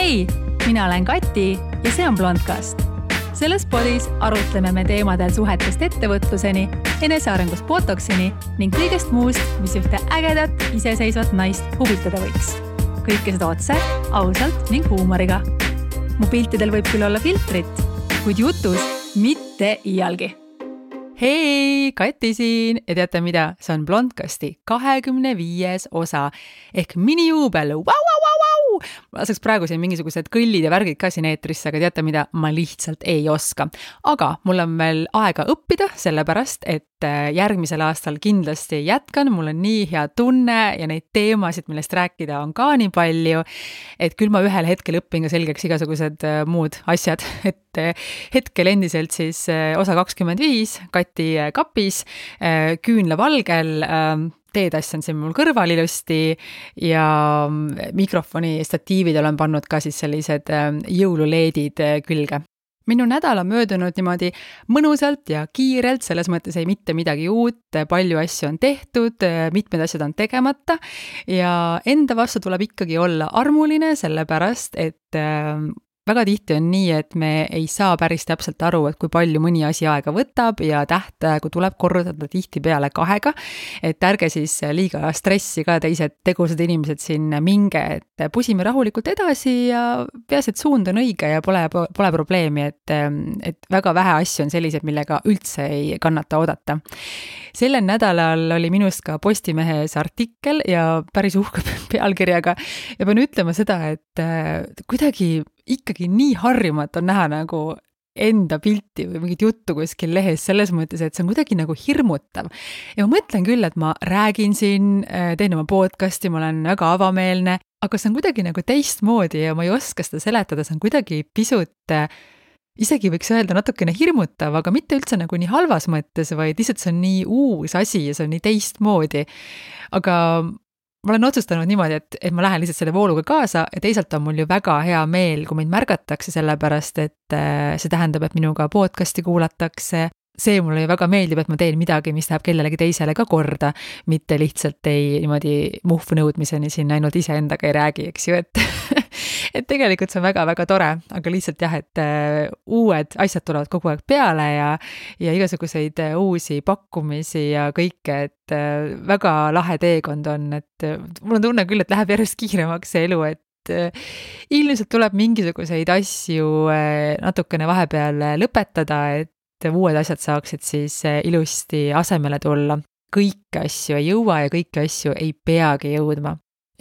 Hei, mina olen Kati ja see on Blondcast. Selles podis arutleme me teemadel suhetest ettevõtluseni, enesearengust botoksini ning kõigest muust, mis ühte ägedat, iseseisvat naist huvitada võiks. Kõike seda otse, ausalt ning huumoriga. Mu piltidel võib küll olla filtrit, kuid jutus mitte iialgi. Hei, Kati siin ja teate mida? See on Blondcasti 25. osa ehk minijuubel. Ma laseks praegu siin mingisugused kõllid ja värgid ka siin eetrisse, aga teate mida? Ma lihtsalt ei oska. Aga mul on veel aega õppida, sellepärast, et järgmisel aastal kindlasti jätkan. Mul on nii hea tunne ja neid teemasid, millest rääkida on ka nii palju, et küll ma ühel hetkel õpin ka selgeks igasugused muud asjad. Et hetkel endiselt siis osa 25, Kati kapis, küünlavalgel, teetass on siin mul kõrval ilusti ja mikrofoni statiivid olen pannud ka siis sellised jõululeedid külge. Minu nädal on möödunud niimoodi mõnusalt ja kiirelt, selles mõttes ei mitte midagi uut, palju asju on tehtud, mitmed asjad on tegemata ja enda vastu tuleb ikkagi olla armuline, sellepärast, et väga tihti on nii, et me ei saa päris täpselt aru, et kui palju mõni asi aega võtab ja tähtaegu tuleb korrutada tihti peale 2, et ärge siis liiga stressi ka teised tegusad inimesed siin minge, et pusime rahulikult edasi ja peas, et suund on õige ja pole probleemi, et väga vähe asju on sellised, millega üldse ei kannata oodata. Sellel nädalal oli minust ka Postimehes artikkel ja päris uhke pealkirjaga ja pean ütlema seda, et kuidagi ikkagi nii harjumatu on näha nagu enda pilti või mingit juttu kuskil lehes selles mõttes, et see on kuidagi nagu hirmutav. Ja ma mõtlen küll, et ma räägin siin, teen oma podcasti, ma olen väga avameelne, aga see on kuidagi nagu teistmoodi ja ma ei oska seda seletada, see on kuidagi pisut, isegi võiks öelda natukene hirmutav, aga mitte üldse nagu nii halvas mõttes, vaid lihtsalt see on nii uus asi ja see on nii teistmoodi. Aga ma olen otsustanud niimoodi, et ma lähen lihtsalt selle vooluga kaasa ja teisalt on mul ju väga hea meel, kui mind märgatakse sellepärast, et see tähendab, et minuga podcasti kuulatakse. See mulle ju väga meeldib, et ma teen midagi, mis läheb kellelegi teisele ka korda, mitte lihtsalt ei niimoodi muhvu nõudmiseni siin ainult iseendaga ei räägi, eks ju, et tegelikult see on väga-väga tore, aga lihtsalt jah, et uued asjad tulevad kogu aeg peale ja igasuguseid uusi pakkumisi ja kõike, et väga lahe teekond on, et mul on tunne küll, et läheb järjest kiiremaks see elu, et ilmselt tuleb mingisuguseid asju natukene vahepeal lõpetada, et uued asjad saaksid siis ilusti asemele tulla. Kõiki asju ei jõua ja kõiki asju ei peagi jõudma.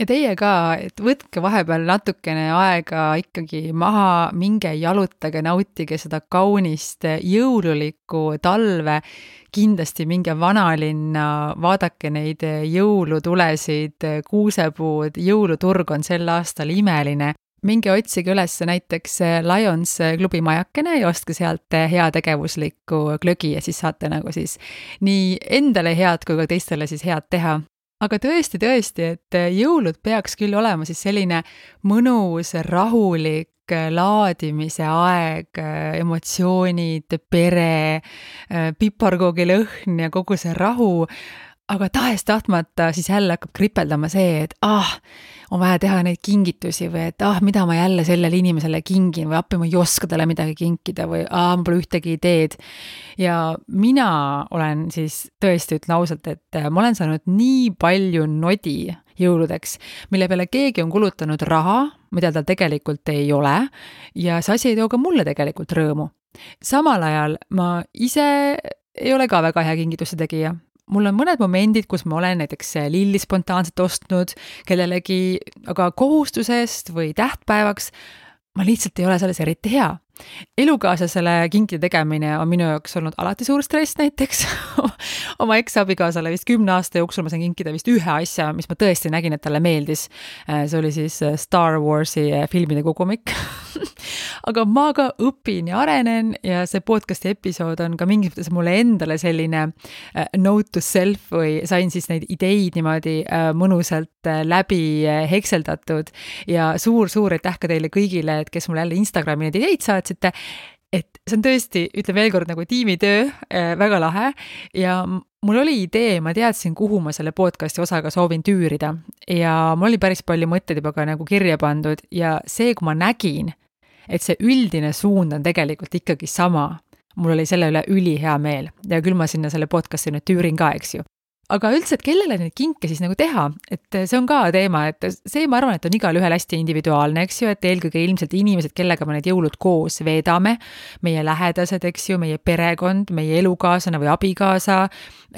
Ja teie ka, et võtke vahepeal natukene aega ikkagi maha, minge jalutage, nautige seda kaunist jõululikku talve, kindlasti minge vanalinna, vaadake neid jõulutulesid, kuusepuud, jõuluturg on sel aastal imeline. Minge otsige üles näiteks Lions klubi majakene ja ostke sealt heategevuslikku glögi ja siis saate nagu siis nii endale head kui ka teistele siis head teha. Aga tõesti, et jõulud peaks küll olema siis selline mõnus, rahulik laadimise aeg, emotsioonid, pere, piparkoogi lõhn ja kogu see rahu, aga tahes-tahtmata siis jälle hakkab kripeldama see, et on vaja teha neid kingitusi või et mida ma jälle sellele inimesele kingin või appi ma ei oska talle midagi kinkida või ma pole ühtegi ideed. Ja mina olen siis tõesti ütlen ausalt, et ma olen saanud nii palju nodi jõuludeks, mille peale keegi on kulutanud raha, mida tal tegelikult ei ole ja see asi ei too ka mulle tegelikult rõõmu. Samal ajal ma ise ei ole ka väga hea kingituste tegija. Mul on mõned momendid, kus ma olen näiteks lilli spontaanselt ostnud kellelegi, aga kohustusest või tähtpäevaks ma lihtsalt ei ole selles eriti hea. Elukaaslasele kinkide tegemine on minu jaoks olnud alati suur stress näiteks. Oma eks-abikaasale vist 10 aasta jooksul ma sain kinkida vist ühe asja, mis ma tõesti nägin, et talle meeldis. See oli siis Star Warsi filmide kogumik. Aga ma ka õpin ja arenen ja see podcasti episood on ka mingis mõttes mulle endale selline note to self või sain siis neid ideid niimoodi mõnusalt läbi hekseldatud ja suur aitäh ka teile kõigile, et kes mulle jälle Instagrami neid ideid saatsite. et see on tõesti, ütle veel kord nagu tiimitöö, väga lahe ja mul oli idee, ma teadsin, kuhu ma selle podcasti osaga soovin tüürida ja mul oli päris palju mõtteid juba ka nagu kirja pandud ja see, kui ma nägin, et see üldine suund on tegelikult ikkagi sama, mul oli selle üle ülihea meel ja küll ma sinna selle podcasti nüüd tüürin ka, eks ju. Aga üldse, et kellele neid kinke siis nagu teha, et see on ka teema, et see ma arvan, et on igal ühel hästi individuaalne, eks ju, et eelkõige ilmselt inimesed, kellega me need jõulud koos veedame, meie lähedased, eks ju, meie perekond, meie elukaaslane või abikaasa,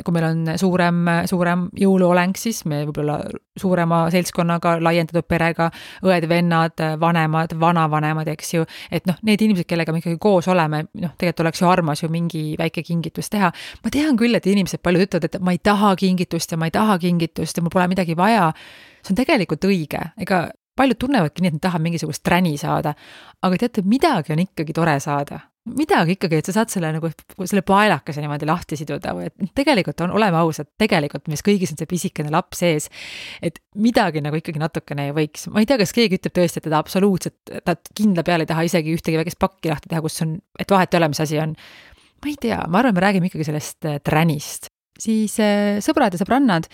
kui meil on suurem jõuluoleng, siis me võib-olla suurema seltskonnaga, laiendatud perega, õed, vennad, vanemad, vanavanemad, eks ju, et noh, need inimesed, kellega me ikkagi koos oleme, noh, tegelikult oleks ju armas ju mingi väike kingitus teha. Ma tean küll, et inimesed palju ütlevad, et ma ei taha kingitust ja mul pole midagi vaja. See on tegelikult õige. Ega paljud tunnevadki nii, et nad tahavad mingisugust träni saada. Aga teate, midagi on ikkagi tore saada. Midagi ikkagi, et sa saad selle paelakese niimoodi lahti siduda või et tegelikult oleme ausad, tegelikult mis kõigis on see pisikene laps ees, et midagi nagu ikkagi natukene ei võiks. Ma ei tea, kas keegi ütleb tõesti, et ta absoluutselt, ta kindla peale ei taha isegi ühtegi väikest pakki lahti teha, kus on, et vahet ei ole, mis asi on. Ma ei tea, ma arvan, me räägime ikkagi sellest tränist. Siis sõbrad ja sõbrannad,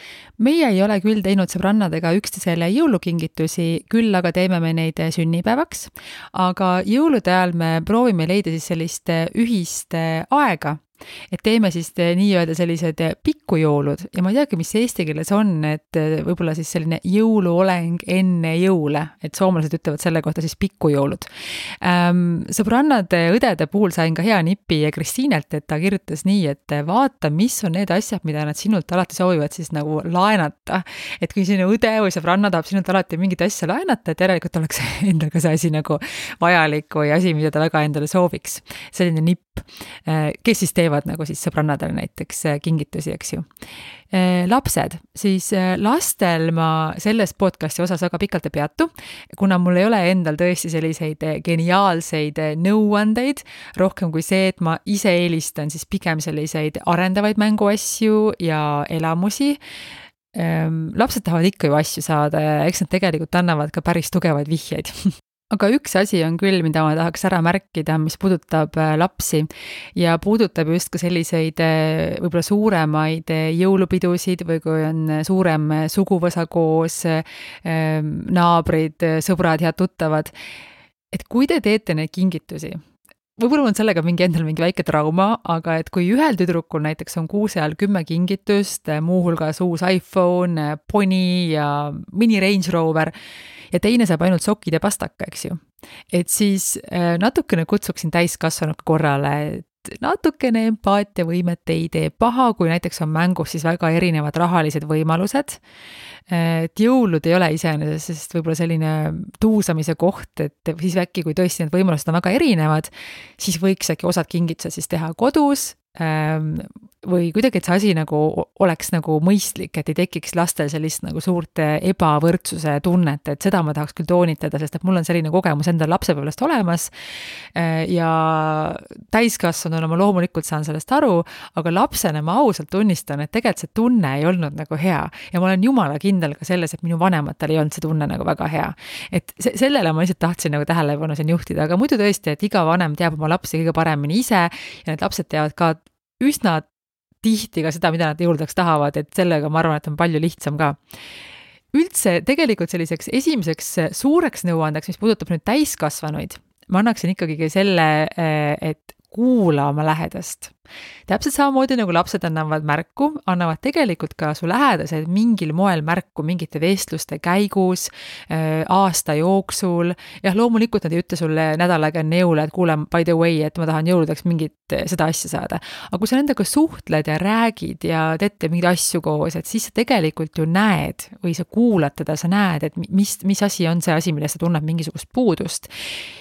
meie ei ole küll teinud sõbrannadega üksteisele jõulukingitusi, küll aga teeme me neid sünnipäevaks, aga jõulude ajal me proovime leida siis sellist ühist aega, et teeme siis nii-öelda sellised pikkujõulud ja ma ei teagi, mis eesti keeles on, et võib-olla siis selline jõuluoleng enne jõule, et soomlased ütlevad selle kohta siis pikkujõulud. Sõbrannade õdede puhul sain ka hea nipi Kristiinelt, et ta kirjutas nii, et vaata, mis on need asjad, mida nad sinult alati soovivad siis nagu laenata. Et kui sinu õde või sõbranna tahab sinult alati mingit asja laenata, et järelikult oleks endal ka see asi nagu vajalik või asi, mida ta väga endale sooviks. Selline nipp, kes siis teevad nagu siis sõbrannadele näiteks kingitusi, eks ju. Lapsed, siis lastel ma selles podcasti osas väga pikalt ei peatu, kuna mul ei ole endal tõesti selliseid geniaalseid nõuandeid, rohkem kui see, et ma ise eelistan siis pigem selliseid arendavaid mänguasju ja elamusi. Lapsed tahavad ikka ju asju saada ja eks nad tegelikult annavad ka päris tugevaid vihjeid. Aga üks asi on küll, mida ma tahaks ära märkida, mis puudutab lapsi ja puudutab just ka selliseid võib-olla suuremaid jõulupidusid või kui on suurem suguvõsa koos, naabrid, sõbrad, head tuttavad. Et kui te teete neid kingitusi, võib-olla on sellega endal mingi väike trauma, aga et kui ühel tüdrukul näiteks on kuuse ajal 10 kingitust, muuhulgas uus iPhone, Pony ja mini Range Rover, ja teine saab ainult sokid ja pastaka, eks ju. Et siis natukene kutsuksin täiskasvanud korrale, et natukene empaatiavõimet ei tee paha, kui näiteks on mängus siis väga erinevad rahalised võimalused. Et jõulud ei ole iseenesest võib-olla selline tuusamise koht, et siis äkki, kui tõesti need võimalused on väga erinevad, siis võiks äkki osad kingitused siis teha kodus, või kuidagi, et see asi nagu oleks nagu mõistlik, et ei tekiks lastel sellist nagu suurt ebavõrdsuse tunnet, et seda ma tahaks küll toonitada, sest et mul on selline kogemus endal lapsepõlvest olemas ja täiskasvanuna ma loomulikult saan sellest aru, aga lapsena ma ausalt tunnistan, et tegelikult see tunne ei olnud nagu hea ja ma olen jumala kindel ka selles, et minu vanematel ei olnud see tunne nagu väga hea. Et sellele ma lihtsalt tahtsin nagu tähelepanu siin juhtida, aga muidu tõesti, et iga vanem teab oma lapsi kõige paremini ise ja need lapsed teavad ka üsna tihti ka seda, mida nad jõuludeks tahavad, et sellega ma arvan, et on palju lihtsam ka. Üldse tegelikult selliseks esimeseks suureks nõuandeks, mis puudutab nüüd täiskasvanuid, ma annaksin ikkagi selle, et kuula oma lähedast. Täpselt samamoodi nagu lapsed annavad märku, annavad tegelikult ka su lähedased mingil moel märku mingite vestluste käigus, aasta jooksul. Jah, loomulikult nad ei ütle sulle nädal aega enne jõule, et kuule, by the way, et ma tahan jõuludeks mingit seda asja saada. Aga kui sa nendega suhtled ja räägid ja teete mingeid asju koos, et siis sa tegelikult ju näed või sa kuulad teda, sa näed, et mis asi on see asi, millest sa tunned mingisugust puudust.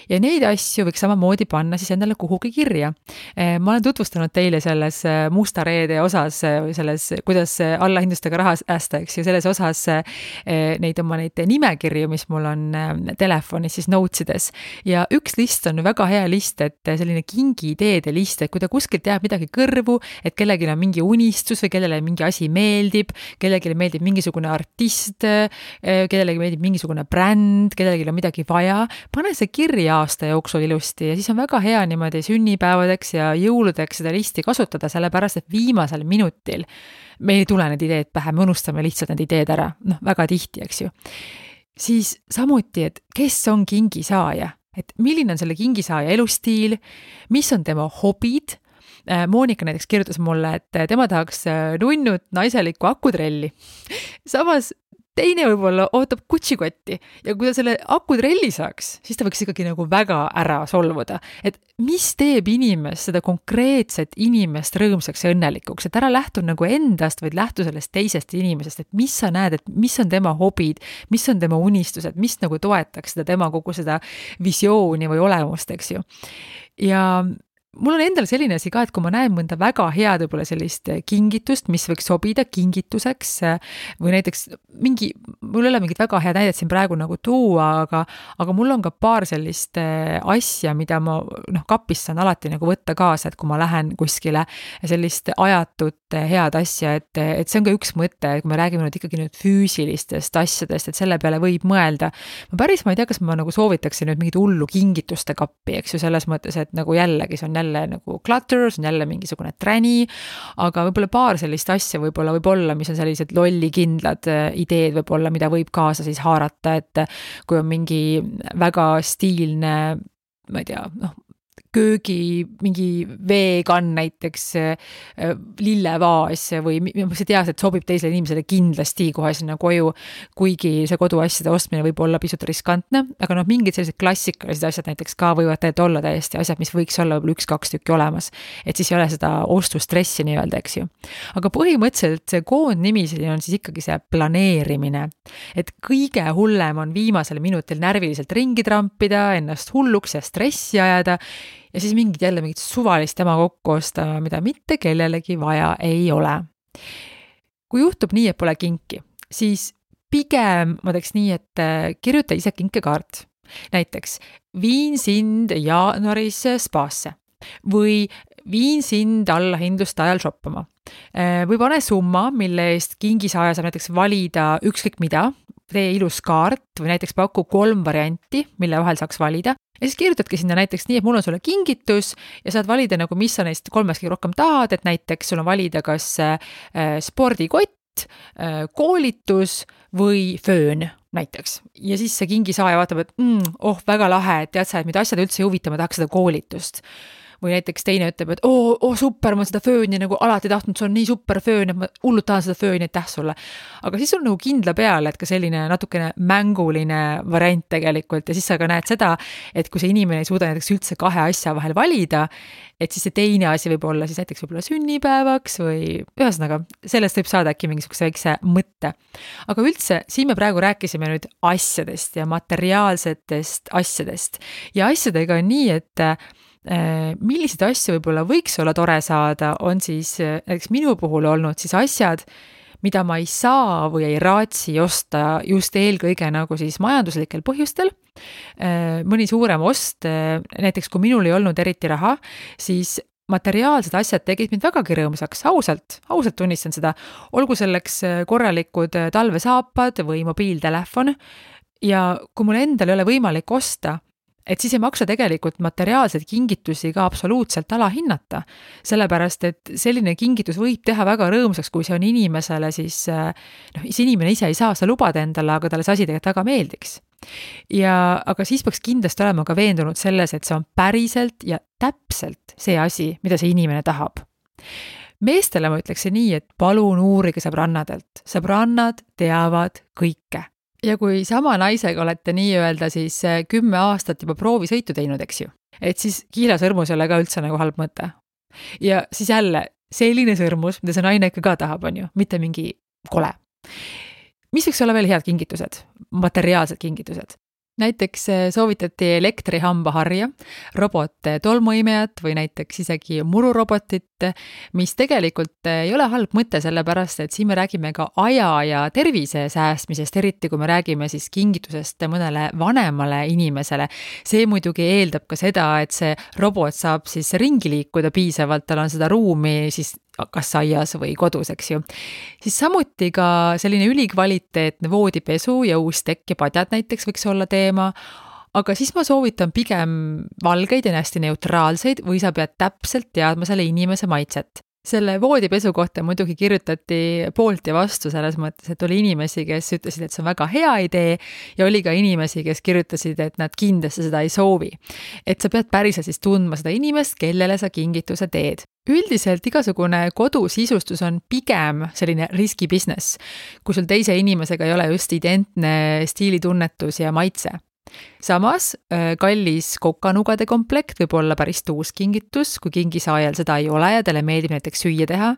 Ja neid asju võiks samamoodi panna siis endale kuhugi kirja. Ma olen tutvustanud teile selles musta reede osas, selles, kuidas allahindlustega raha säästa, eks ju, selles osas neid nimekirju, mis mul on telefonis siis notesides. Ja üks list on väga hea list, et selline kingiideede list, et kui ta kuskilt jääb midagi kõrvu, et kellelgi on mingi unistus või kellele mingi asi meeldib, kellelegi meeldib mingisugune artist, kellelegi meeldib mingisugune bränd, kellelegi on midagi vaja, pane see kirja aasta jooksul ilusti ja siis on väga hea niimoodi sünnipäevadeks ja jõuludeks seda listi kasutada, sellepärast et viimasel minutil meil ei tule need ideed pähe, me unustame lihtsalt need ideed ära, väga tihti, eks ju. Siis samuti, et kes on kingisaaja, et milline on selle kingisaaja elustiil, mis on tema hobid. Moonika näiteks kirjutas mulle, et tema tahaks nunnut naiselikku akutrelli. Samas teine võib-olla ootab kutsikotti ja kui ta selle akutrelli saaks, siis ta võiks ikkagi nagu väga ära solvuda. Et mis teeb inimest, seda konkreetset inimest rõõmsaks ja õnnelikuks, et ära lähtu nagu endast, vaid lähtu sellest teisest inimesest, et mis sa näed, et mis on tema hobid, mis on tema unistused, mis nagu toetaks seda tema kogu seda visiooni või olemust, eks ju. Ja mul on endal selline asi ka, et kui ma näen mõnda väga head võib-olla sellist kingitust, mis võiks sobida kingituseks või näiteks mul ei ole mingit väga head näidet siin praegu nagu tuua, aga mul on ka paar sellist asja, mida ma kapis saan alati nagu võtta kaasa, et kui ma lähen kuskile sellist ajatut head asja, et see on ka üks mõte, kui me räägime nüüd ikkagi nüüd füüsilistest asjadest, et selle peale võib mõelda. Ma ei tea, kas ma nagu soovitaksin nüüd mingit hullu kingituste kappi, eks ju, selles mõttes, et nagu jällegi see on jälle nagu clutter, see on jälle mingisugune träni, aga võib-olla paar sellist asja võib-olla, mis on sellised lollikindlad ideed võib-olla, mida võib kaasa siis haarata, et kui on mingi väga stiilne, ma ei tea, köögi, mingi veekann näiteks, lillevaas või sa tead, et sobib teisele inimesele kindlasti kohe sinna koju, kuigi see koduasjade ostmine võib olla pisut riskantne, aga mingid sellised klassikalised asjad näiteks ka võivad olla täiesti asjad, mis võiks olla võib-olla 1-2 tükki olemas, et siis ei ole seda ostustressi nii-öelda, eks ju. Aga põhimõtteliselt see koondnimi on siis ikkagi see planeerimine, et kõige hullem on viimasel minutil närviliselt ringi trampida, ennast hulluks ja stressi ajada ja siis mingit suvalist tema kokku osta, mida mitte kellelegi vaja ei ole. Kui juhtub nii, et pole kinki, siis pigem ma teeks nii, et kirjuta ise kinkekaart. Näiteks viin sind jaanuaris spaasse või viin sind allahindluste ajal shoppama. Või pane summa, mille eest kingisaaja saab näiteks valida ükskõik mida, tee ilus kaart või näiteks paku 3 varianti, mille vahel saaks valida. Ja siis kirjutadki sinna näiteks nii, et mul on sulle kingitus ja saad valida nagu, mis sa neist 3 rohkem tahad, et näiteks sul on valida kas spordikott, koolitus või föön näiteks. Ja siis see kingisaaja vaatab, et väga lahe, et tead sa, et mida asjad üldse ei huvita, ma tahaks seda koolitust. Või näiteks teine ütleb, et super, ma seda fööni nagu alati tahtnud, see on nii super föön, et ma hullult tahan seda fööni, aitäh sulle. Aga siis on nagu kindla peale, et ka selline natukene mänguline variant tegelikult ja siis sa ka näed seda, et kui see inimene ei suuda näiteks üldse 2 asja vahel valida, et siis see teine asi võib olla siis näiteks võib-olla sünnipäevaks või ühesõnaga, sellest võib saada äkki mingisuguse väikse mõtte. Aga üldse, siin me praegu rääkisime nüüd asjadest ja materiaalsetest asjadest ja asjadega on nii, et milliseid asju võib-olla võiks olla tore saada, on siis näiteks minu puhul olnud siis asjad, mida ma ei saa või ei raatsi osta just eelkõige nagu siis majanduslikel põhjustel. Mõni suurem ost, näiteks kui minul ei olnud eriti raha, siis materiaalsed asjad tegid mind vägagi rõõmsaks, ausalt tunnistan seda, olgu selleks korralikud talvesaapad või mobiiltelefon ja kui mul endal ei ole võimalik osta, et siis ei maksa tegelikult materiaalseid kingitusi ka absoluutselt alahinnata, sellepärast et selline kingitus võib teha väga rõõmsaks, kui see on inimesele siis, see inimene ise ei saa seda lubada endale, aga talle see asi tegelikult väga meeldiks. Aga siis peaks kindlasti olema ka veendunud selles, et see on päriselt ja täpselt see asi, mida see inimene tahab. Meestele ma ütleksin nii, et palun uurige sõbrannadelt. Sõbrannad teavad kõike. Ja kui sama naisega olete nii-öelda siis 10 aastat juba proovisõitu teinud, eks ju, et siis kiilasõrmus ei ole ka üldse nagu halb mõte. Ja siis jälle selline sõrmus, mida see naine ikka ka tahab, on ju, mitte mingi kole. Mis võiks olla veel head kingitused, materiaalsed kingitused? Näiteks soovitati elektrihambaharja, robot tolmuimejat või näiteks isegi mururobotit, mis tegelikult ei ole halb mõte, sellepärast et siin me räägime ka aja ja tervise säästmisest, eriti kui me räägime siis kingitusest mõnele vanemale inimesele. See muidugi eeldab ka seda, et see robot saab siis ringi liikuda piisavalt, tal on seda ruumi siis kas aias või kodus, eks ju. Siis samuti ka selline ülikvaliteetne voodipesu ja uus tekk ja padjad näiteks võiks olla teema, aga siis ma soovitan pigem valgeid ja hästi neutraalseid või sa pead täpselt teadma selle inimese maitset. Selle voodipesu kohta muidugi kirjutati poolt ja vastu selles mõttes, et oli inimesi, kes ütlesid, et see on väga hea idee ja oli ka inimesi, kes kirjutasid, et nad kindlasti seda ei soovi. Et sa pead päriselt siis tundma seda inimest, kellele sa kingituse teed. Üldiselt igasugune kodusisustus on pigem selline riski business, kui sul teise inimesega ei ole just identne stiilitunnetus ja maitse. Samas kallis kokanugade komplekt võib olla päris tuus kingitus, kui kingisaajal seda ei ole ja talle meeldib näiteks süüa teha.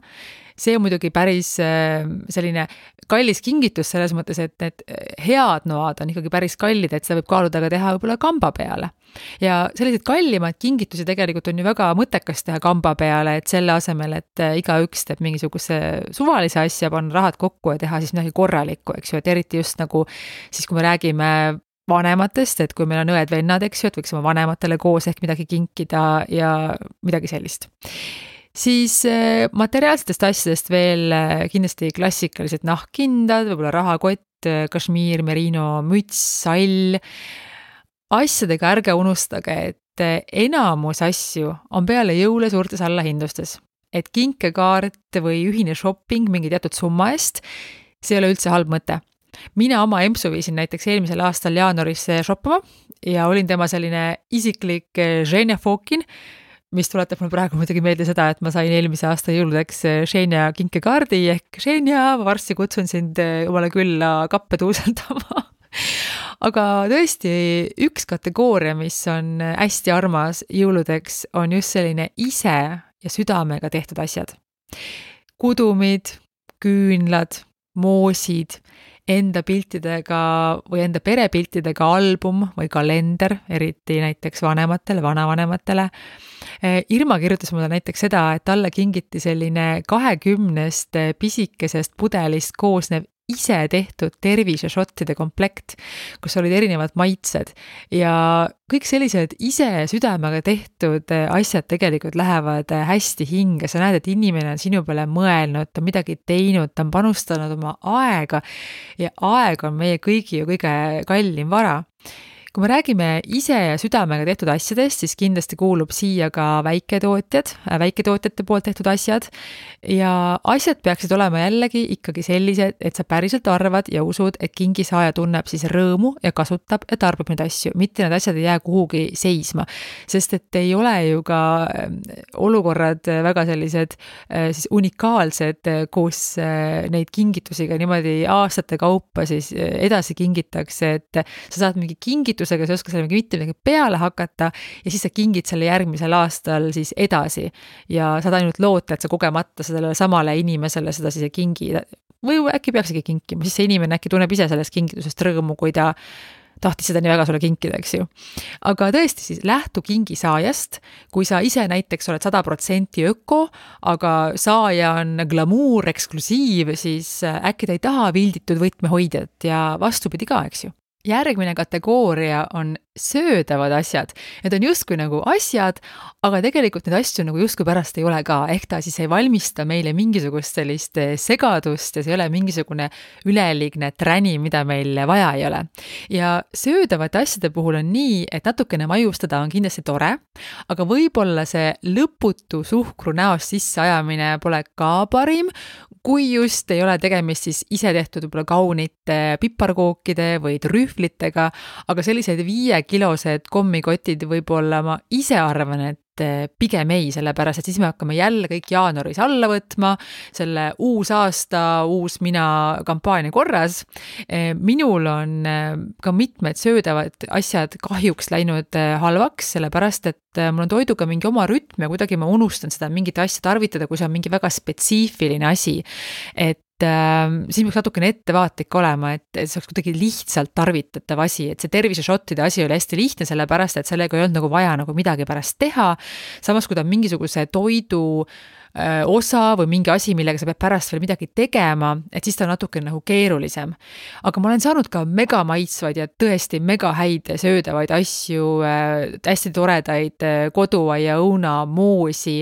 See on muidugi päris selline kallis kingitus selles mõttes, et need head noad on ikkagi päris kallid, et seda võib kaaluda ka teha võib-olla kamba peale. Ja sellised kallimad kingitusi tegelikult on ju väga mõttekas teha kamba peale, et selle asemel, et igaüks teeb mingisuguse suvalise asja, panna rahad kokku ja teha siis midagi korralikku, eks ju, et eriti just nagu siis, kui me räägime vanematest, et kui meil on õed-vennad, eks ju, et võiks oma vanematele koos ehk midagi kinkida ja midagi sellist. Siis materiaalsetest asjadest veel kindlasti klassikalised nahkkindad, võib-olla rahakott, kašmiir, merino, müts, sall. Asjadega ärge unustage, et enamus asju on peale jõule suurtes allahindlustes. Et kinkekaart või ühine shopping mingi teatud summa eest, see ei ole üldse halb mõte. Mina oma empsu viisin näiteks eelmisel aastal jaanuaris shoppama ja olin tema selline isiklik Ženja Fokin, mis tuletab mul praegu muidugi meelde seda, et ma sain eelmise aasta jõuludeks Ženja kinkekaardi ehk Ženja, ma varsti kutsun sind omale külla kappe tuusaldama. Aga tõesti, üks kategooria, mis on hästi armas jõuludeks, on just selline ise ja südamega tehtud asjad. Kudumid, küünlad, moosid, enda piltidega või enda perepiltidega album või kalender, eriti näiteks vanematele, vanavanematele. Irma kirjutas mulle näiteks seda, et talle kingiti selline 20 pisikesest pudelist koosnev ise tehtud terviseshottide komplekt, kus olid erinevad maitsed ja kõik sellised ise südamega tehtud asjad tegelikult lähevad hästi hinge. Sa näed, et inimene on sinu peale mõelnud, ta on midagi teinud, ta on panustanud oma aega ja aeg on meie kõigi ju kõige kallim vara. Kui me räägime ise ja südamega tehtud asjadest, siis kindlasti kuulub siia ka väiketootjate poolt tehtud asjad ja asjad peaksid olema jällegi ikkagi sellised, et sa päriselt arvad ja usud, et kingisaaja tunneb siis rõõmu ja kasutab ja tarbib neid asju, mitte need asjad ei jää kuhugi seisma, sest et ei ole ju ka olukorrad väga sellised siis unikaalsed, kus neid kingitusi ka niimoodi aastate kaupa siis edasi kingitakse, et sa saad mingi kingitusega, sa ei oska selle mitte midagi peale hakata ja siis sa kingid selle järgmisel aastal siis edasi ja saad ainult loota, et sa kogemata sellele samale inimesele seda siis ei kingi või äkki peaksigi kinkima, siis see inimene äkki tunneb ise sellest kingitusest rõõmu, kui ta tahtis seda nii väga sulle kinkida, eks ju. Aga tõesti siis lähtu kingisaajast, kui sa ise näiteks oled 100% öko, aga saaja on glamuur, eksklusiiv, siis äkki ta ei taha vilditud võtmehoidjat ja vastupidi ka, eks ju. Järgmine kategooria on söödavad asjad. Need on justkui nagu asjad, aga tegelikult need asju nagu justkui pärast ei ole ka. Ehk ta siis ei valmista meile mingisugust sellist segadust ja see ei ole mingisugune üleliigne träni, mida meil vaja ei ole. Ja söödavate asjade puhul on nii, et natukene maiustada on kindlasti tore, aga võib-olla see lõputu suhkru näost sisseajamine pole ka parim, kui just ei ole tegemist siis ise tehtud võib-olla kaunite piparkookide või trühvlitega, aga sellised 5-kilosed kommikotid võib-olla ma ise arvan, et pigem ei, sellepärast, et siis me hakkame jälle kõik jaanuaris alla võtma, selle uus aasta, uus mina kampaania korras. Minul on ka mitmed söödavad asjad kahjuks läinud halvaks, sellepärast, et mul on toiduga mingi oma rütm ja kuidagi ma unustan seda mingit asja tarvitada, kui see on mingi väga spetsiifiline asi. Et siin peaks natukene ettevaatlik olema, et see oleks kuidagi lihtsalt tarvitatav asi, et see terviseshottide asi oli hästi lihtne, sellepärast, et sellega ei olnud nagu vaja nagu midagi pärast teha. Samas, kui ta on mingisuguse toidu osa või mingi asi, millega sa pead pärast veel midagi tegema, et siis ta on natuke nagu keerulisem. Aga ma olen saanud ka mega maitsvaid ja tõesti mega häid söödavaid asju, hästi toredaid koduaia õuna, moosi,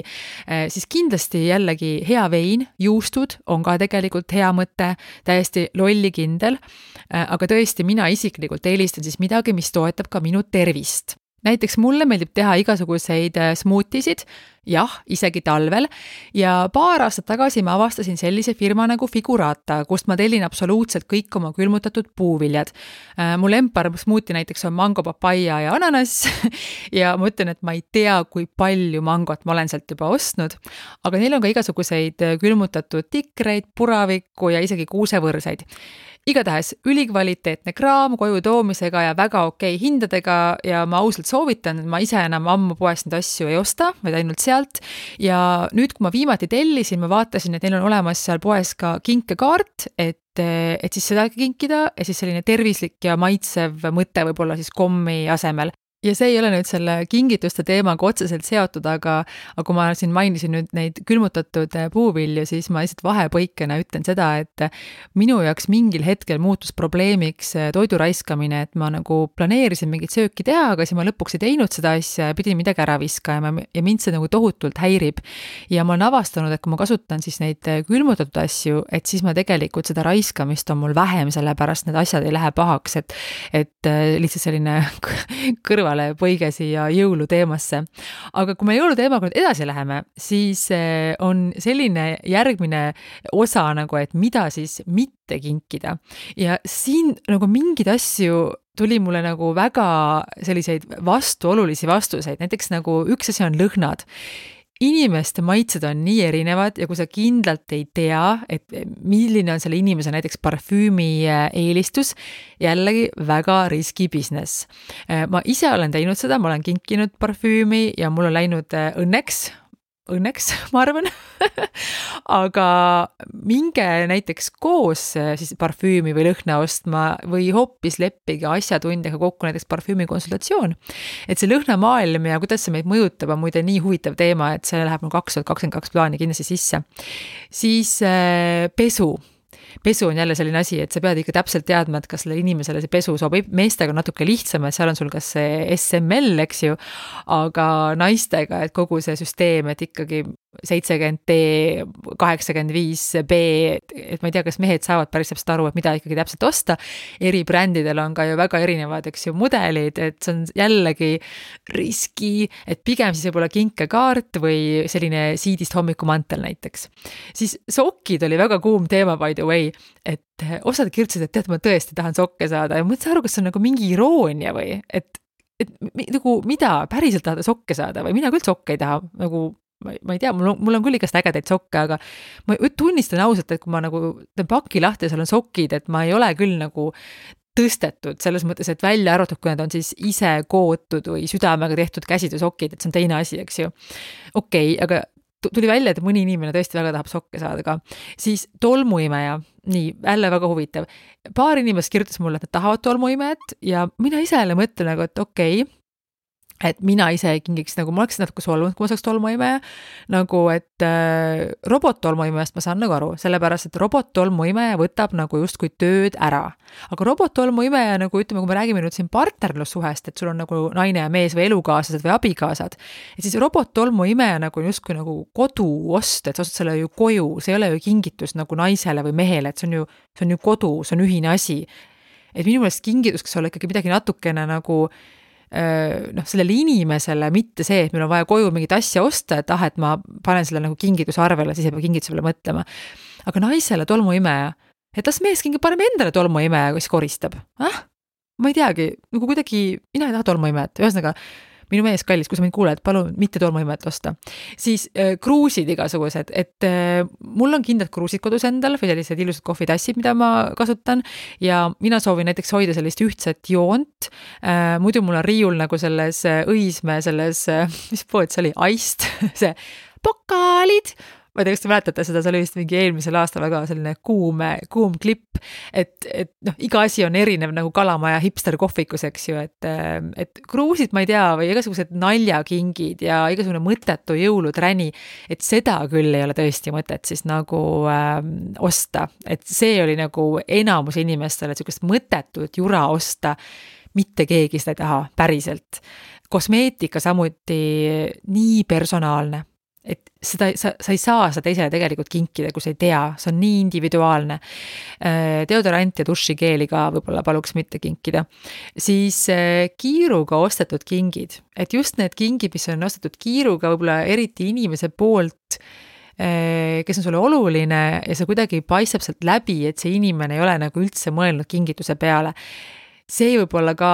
siis kindlasti jällegi hea vein, juustud on ka tegelikult hea mõte, täiesti lollikindel, aga tõesti mina isiklikult eelistan siis midagi, mis toetab ka minu tervist. Näiteks mulle meeldib teha igasuguseid smoothisid, jah, isegi talvel, ja paar aastat tagasi ma avastasin sellise firma nagu Figurata, kust ma tellin absoluutselt kõik oma külmutatud puuviljad. Mul lempar smoothie näiteks on mango, papaia ja ananas ja ma ütlen, et ma ei tea, kui palju mangot ma olen sealt juba ostnud, aga neil on ka igasuguseid külmutatud tikreid, puravikku ja isegi kuusevõrsaid. Igatahes ülikvaliteetne kraam koju toomisega ja väga okei hindadega ja ma ausalt soovitan, et ma ise enam ammu poest neid asju ei osta, vaid ainult sealt. Ja nüüd, kui ma viimati tellisin, ma vaatasin, et neil on olemas seal poes ka kinkekaart, et siis seda kinkida ja siis selline tervislik ja maitsev mõte võib-olla siis kommi asemel. Ja see ei ole nüüd selle kingituste teemaga otseselt seotud, aga kui ma siin mainisin nüüd neid külmutatud puuvilju, siis ma lihtsalt vahepõikena ütlen seda, et minu jaoks mingil hetkel muutus probleemiks toidu raiskamine, et ma nagu planeerisin mingit sööki teha, aga siis ma lõpuks ei teinud seda asja ja pidin midagi ära viskama ja mind see nagu tohutult häirib. Ja ma olen avastanud, et kui ma kasutan siis neid külmutatud asju, et siis ma tegelikult seda raiskamist on mul vähem, sellepärast need asjad ei lähe pahaks, et lihtsalt selline põige siia jõuluteemasse. Aga kui me jõuluteemaga nüüd edasi läheme, siis on selline järgmine osa nagu, et mida siis mitte kinkida. Ja siin nagu mingid asju tuli mulle nagu väga selliseid vastuolulisi vastuseid. Näiteks nagu üks asi on lõhnad. Inimeste maitsed on nii erinevad ja kui sa kindlalt ei tea, et milline on selle inimese näiteks parfüümi eelistus, jällegi väga riski business. Ma ise olen teinud seda, ma olen kinkinud parfüümi ja mul on läinud õnneks, ma arvan, aga minge näiteks koos siis parfüümi või lõhna ostma või hoopis leppige asjatundjaga kokku näiteks parfüümi konsultatsioon. Et see lõhnamaailm ja kuidas see meid mõjutab on muide nii huvitav teema, et see läheb 2022 plaani kindlasti sisse. Siis pesu on jälle selline asi, et sa pead ikka täpselt teadma, et kas sellele inimesele see pesu sobib. Meestega on natuke lihtsam, et seal on sul kas see SML, eks ju, aga naistega, et kogu see süsteem, et ikkagi 70D, 85B, et ma ei tea, kas mehed saavad päris täpselt aru, et mida ikkagi täpselt osta. Eri brändidel on ka ju väga erinevad, eks ju, mudelid, et see on jällegi riski, et pigem siis võib-olla kinkekaart või selline siidist hommikumantel näiteks. Siis sokid oli väga kuum teema, by the way, et osad kirjutasid, et tead, ma tõesti tahan sokke saada ja mõtlesin aru, kas see on nagu mingi iroonia või, et nagu mida päriselt tahada sokke saada või mina küll sokke ei taha, nagu ma ei tea, mul on küll igast ägedaid sokke, aga ma tunnistan ausalt, et kui ma nagu teen paki lahti ja seal on sokid, et ma ei ole küll nagu tõstetud selles mõttes, et välja arvatud, kui need on siis ise kootud või südamega tehtud käsitöösokid, et see on teine asi, eks ju. Okei, aga tuli välja, et mõni inimene tõesti väga tahab sokke saada ka. Siis tolmuimeja, nii, jälle väga huvitav. Paar inimest kirjutas mulle, et nad tahavad tolmuimejat ja mina ise jälle mõtlen nagu, et okei, et mina ise kingiks, nagu ma oleks natuke solvunud, kui ma saaks tolmuimeja, nagu et robot-tolmuimejast ma saan nagu aru, sellepärast, et robot-tolmuimeja võtab nagu justkui tööd ära. Aga robot-tolmuimeja, nagu ütleme, kui me räägime nüüd siin partnerlussuhest, et sul on nagu naine ja mees või elukaaslased või abikaasad, et siis robot-tolmuimeja nagu justkui nagu koduost, et sa ostad selle ju koju, see ei ole ju kingitus nagu naisele või mehele, et see on ju kodu, see on ühine asi. Et minu meelest kingitus, kas olla ikkagi midagi natukene nagu sellele inimesele, mitte see, et meil on vaja koju mingit asja osta, et et ma panen selle nagu kingituse arvele, siis ei pea kingituse peale mõtlema. Aga naisele tolmuimeja, et las mees paneme endale tolmuimeja, kes koristab. Ma ei teagi, nagu kuidagi, mina ei taha tolmuimejat, ühesõnaga minu mees kallis, kui sa mind kuuled, palun mitte tolmuimet osta. Siis kruusid igasugused, et mul on kindlad kruusid kodus endal või sellised ilusad kohvitassid, mida ma kasutan ja mina soovin näiteks hoida sellist ühtset joont. Muidu mul on riiul nagu selles Õismäe, selles, mis pood see oli, Aist, see pokaalid, ma ei tea, kas te mäletate seda, see oli vist mingi eelmisel aastal väga selline kuum klipp, et noh, iga asi on erinev nagu Kalamaja hipster kohvikus, eks ju, et kruusid, ma ei tea, või igasugused naljakingid ja igasugune mõttetu jõuluträni, et seda küll ei ole tõesti mõtet siis nagu osta, et see oli nagu enamus inimestele, et sükest mõttetut jura osta, mitte keegi seda ei taha päriselt. Kosmeetika samuti nii personaalne, et seda, sa ei saa seda teisele tegelikult kinkida, kui sa ei tea, see on nii individuaalne. Deodorant ja dušikeeli ka võib-olla paluks mitte kinkida. Siis kiiruga ostetud kingid, et just need kingid, mis on ostetud kiiruga võib-olla eriti inimese poolt, kes on sulle oluline ja see kuidagi paistab sealt läbi, et see inimene ei ole nagu üldse mõelnud kingituse peale. See võib-olla ka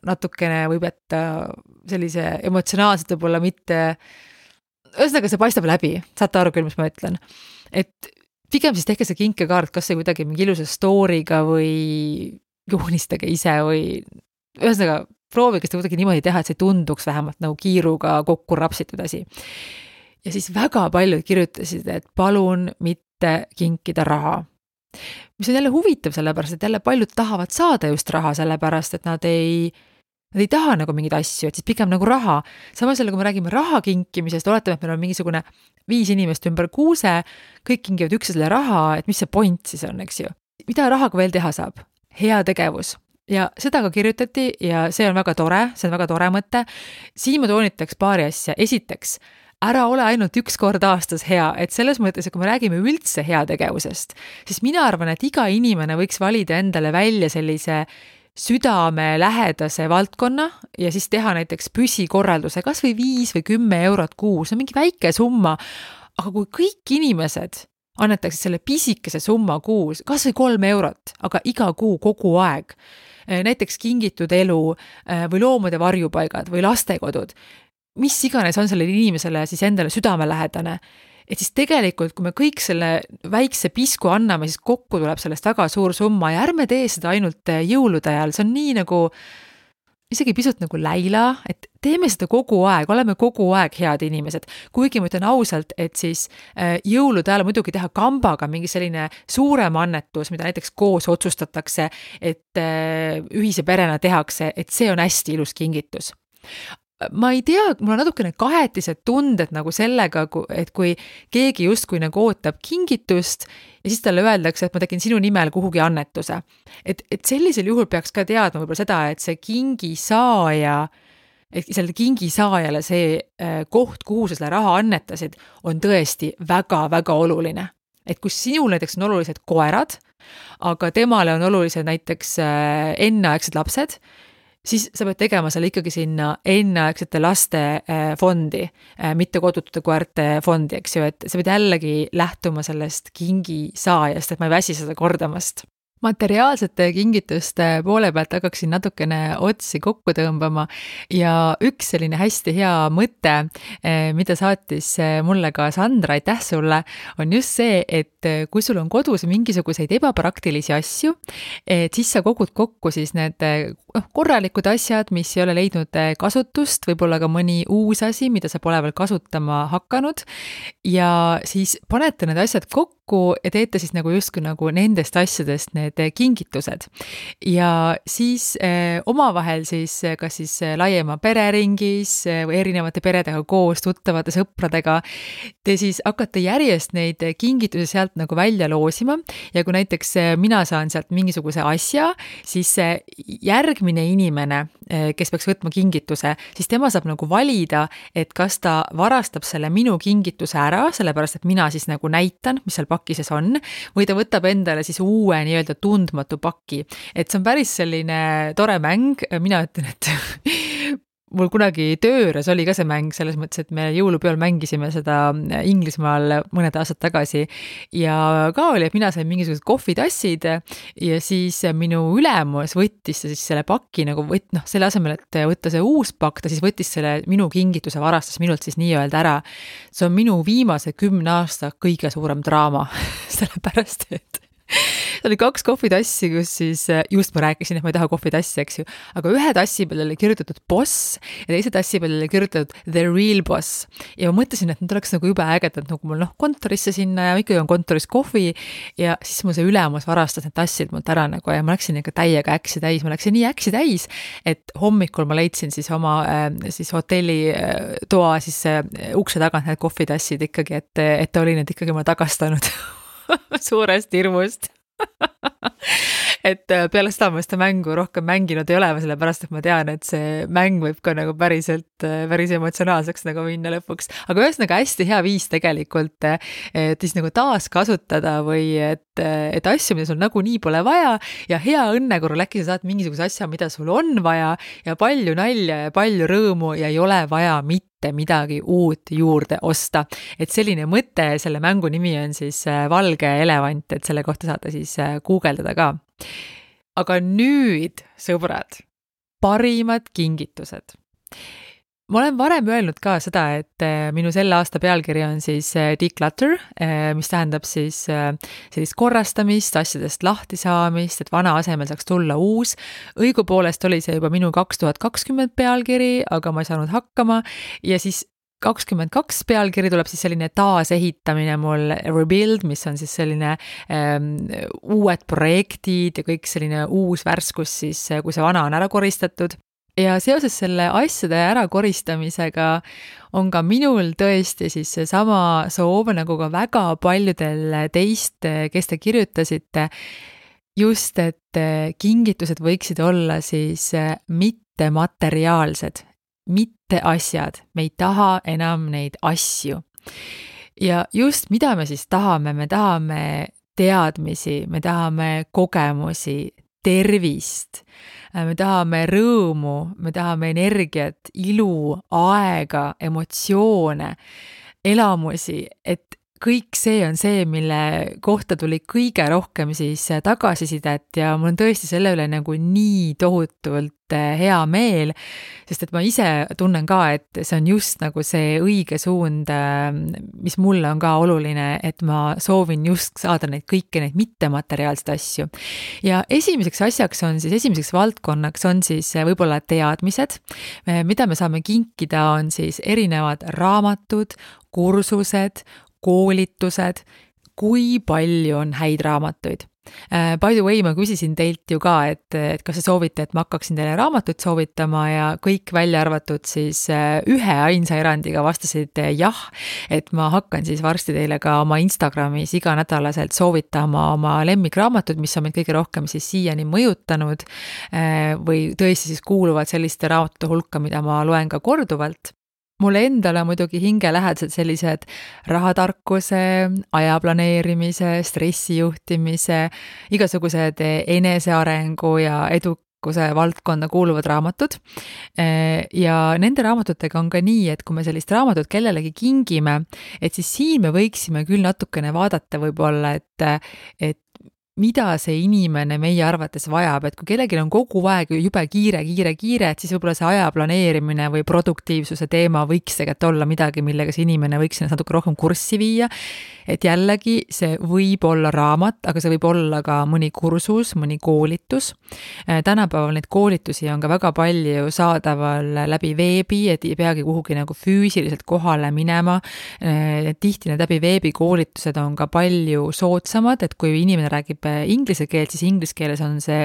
natukene võib jätta sellise emotsionaalselt võib-olla mitte, ühesõnaga see paistab läbi, saate aru küll, mis ma ütlen. Et pigem siis tehke see kinkekaart, kas see kuidagi mingi ilusa story'ga või joonistage ise või ühesõnaga proovige seda kuidagi niimoodi teha, et see tunduks vähemalt nagu kiiruga kokku rapsitud asi. Ja siis väga paljud kirjutasid, et palun mitte kinkida raha. Mis on jälle huvitav sellepärast, et jälle paljud tahavad saada just raha sellepärast, et nad ei taha nagu mingeid asju, et siis pigem nagu raha. Samas jälle, kui me räägime raha kinkimisest, oletame, et meil on mingisugune 5 inimest ümber kuuse, kõik kingivad üksteisele raha, et mis see point siis on, eks ju. Mida rahaga veel teha saab? Hea tegevus. Ja seda ka kirjutati ja see on väga tore mõte. Siin ma toonitaks paari asja. Esiteks, ära ole ainult 1 kord aastas hea, et selles mõttes, et kui me räägime üldse heategevusest, siis mina arvan, et iga inimene võiks valida endale välja sellise südame lähedase valdkonna ja siis teha näiteks püsikorralduse kas või 5 või 10 eurot kuus, see on mingi väike summa, aga kui kõik inimesed annetaksid selle pisikese summa kuus, kas või 3 eurot, aga iga kuu kogu aeg, näiteks kingitud elu või loomade varjupaigad või lastekodud, mis iganes on sellele inimesele siis endale südamelähedane, et siis tegelikult, kui me kõik selle väikse pisku anname, siis kokku tuleb sellest väga suur summa ja ärme tee seda ainult jõulude ajal, see on nii nagu, isegi pisut nagu läila, et teeme seda kogu aeg, oleme kogu aeg head inimesed. Kuigi ma ütlen ausalt, et siis jõulude ajal muidugi teha kambaga mingi selline suurem annetus, mida näiteks koos otsustatakse, et ühise perena tehakse, et see on hästi ilus kingitus. Ma ei tea, mul on natukene kahetised tunded nagu sellega, et kui keegi justkui nagu ootab kingitust ja siis talle öeldakse, et ma tegin sinu nimel kuhugi annetuse. Et sellisel juhul peaks ka teadma võib-olla seda, et see kingisaaja, et selle kingisaajale see koht, kuhu sa selle raha annetasid, on tõesti väga-väga oluline. Et kui sinul näiteks on olulised koerad, aga temale on olulised näiteks enneaegsed lapsed, siis sa pead tegema selle ikkagi sinna enneaegsete laste fondi, mitte kodutute koerte fondi, eks ju, et sa pead jällegi lähtuma sellest kingisaajast, et ma ei väsi seda kordamast. Materiaalsete kingituste poole pealt hakkaksin natukene otsi kokku tõmbama ja üks selline hästi hea mõte, mida saatis mulle ka Sandra, aitäh sulle, on just see, et kui sul on kodus mingisuguseid ebapraktilisi asju, et siis sa kogud kokku siis need korralikud asjad, mis ei ole leidnud kasutust, võib-olla ka mõni uus asi, mida sa pole veel kasutama hakanud ja siis panete need asjad kokku ja teete siis nagu justkui nagu nendest asjadest need kingitused. Ja siis omavahel siis kas siis laiema pereringis või erinevate peredega koos, tuttavate sõpradega, te siis hakkate järjest neid kingitusi sealt nagu välja loosima ja kui näiteks mina saan sealt mingisuguse asja, siis järgmine inimene, kes peaks võtma kingituse, siis tema saab nagu valida, et kas ta varastab selle minu kingituse ära, sellepärast et mina siis nagu näitan, mis seal pakises on, või ta võtab endale siis uue nii-öelda tundmatu paki. Et see on päris selline tore mäng, mina ütlen, et mul kunagi tööres oli ka see mäng, selles mõttes, et me jõulupeol mängisime seda Inglismaal mõned aastad tagasi ja ka oli, et mina sain mingisugused kohvitassid ja siis minu ülemus võttis siis selle paki nagu selle asemel, et võtta see uus pakk, ta siis võttis selle minu kingituse varastas minult siis nii-öelda ära. See on minu viimase 10 aasta kõige suurem draama, sellepärast, et oli 2 kohvitassi, kus siis just ma rääkisin, et ma ei taha kohvitassi, eks ju, aga ühe tassi peale oli kirjutatud boss ja teise tassi peale oli kirjutatud the real boss. Ja ma mõtlesin, et need oleks nagu jube ägedad, nagu mul kontorisse sinna ja ikkagi on kontoris kohvi ja siis mul see ülemus varastas need tassid mult ära nagu ja ma läksin ikka täiega äksi täis, ma läksin nii äksi täis, et hommikul ma leidsin siis oma siis hotelli toa siis ukse tagant need kohvitassid ikkagi, et ta oli need ikkagi mulle tagastanud suurest hirmust et peale seda ma seda mängu rohkem mänginud ei ole, sellepärast et ma tean, et see mäng võib ka nagu päris emotsionaalseks nagu minna lõpuks. Aga ühesõnaga hästi hea viis tegelikult, et siis nagu taaskasutada või et asju, mida sul nagunii pole vaja ja hea õnne korral äkki sa saad mingisuguse asja, mida sul on vaja ja palju nalja ja palju rõõmu ja ei ole vaja mitte midagi uut juurde osta. Et selline mõte, selle mängu nimi on siis Valge elevant, et selle kohta saate siis guugeldada ka. Aga nüüd, sõbrad, parimad kingitused. Ma olen varem öelnud ka seda, et minu selle aasta pealkiri on siis declutter, mis tähendab siis sellist korrastamist, asjadest lahti saamist, et vana asemel saaks tulla uus. Õigupoolest oli see juba minu 2020 pealkiri, aga ma ei saanud hakkama ja siis 22 pealkiri tuleb siis selline taasehitamine mul rebuild, mis on siis selline uued projektid ja kõik selline uus värskus siis, kui see vana on ära koristatud. Ja seoses selle asjade ärakoristamisega on ka minul tõesti siis seesama soov, nagu ka väga paljudel teist, kes te kirjutasite, just et kingitused võiksid olla siis mitte materiaalsed, mitte asjad, me ei taha enam neid asju. Ja just mida me siis tahame, me tahame teadmisi, me tahame kogemusi, tervist, me tahame rõõmu, me tahame energiat, ilu, aega, emotsioone, elamusi, et kõik see on see, mille kohta tuli kõige rohkem siis tagasisidet ja mul on tõesti selle üle nagu nii tohutult hea meel, sest et ma ise tunnen ka, et see on just nagu see õige suund, mis mulle on ka oluline, et ma soovin just saada kõiki neid mittemateriaalseid asju. Ja esimeseks valdkonnaks on siis võib-olla teadmised, mida me saame kinkida, on siis erinevad raamatud, kursused, koolitused, kui palju on häid raamatuid. By the way, ma küsisin teilt ju ka, et kas te soovite, et ma hakkaksin teile raamatuid soovitama ja kõik välja arvatud siis ühe ainsa erandiga vastasid jah, et ma hakkan siis varsti teile ka oma Instagramis iganädalaselt soovitama oma lemmikraamatut, mis on meid kõige rohkem siis siiani mõjutanud või tõesti siis kuuluvad selliste raamatute hulka, mida ma loen ka korduvalt. Mulle endale muidugi hingelähedased sellised rahatarkuse, ajaplaneerimise, stressijuhtimise, igasugused enesearengu ja edukuse valdkonda kuuluvad raamatud. Ja nende raamatutega on ka nii, et kui me sellist raamatut kellelegi kingime, et siis siin me võiksime küll natukene vaadata võib-olla, et mida see inimene meie arvates vajab, et kui kellelgi on kogu aeg jube kiire, et siis võib-olla see aja planeerimine või produktiivsuse teema võiks tegelikult olla midagi, millega see inimene võiks ennast natuke rohkem kurssi viia, et jällegi see võib olla raamat, aga see võib olla ka mõni kursus, mõni koolitus. Tänapäeval neid koolitusi on ka väga palju saadaval läbi veebi, et ei peagi kuhugi nagu füüsiliselt kohale minema. Tihti need läbi veebi koolitused on ka palju soodsamad, et kui inimene räägib inglise keelt, siis inglise keeles on see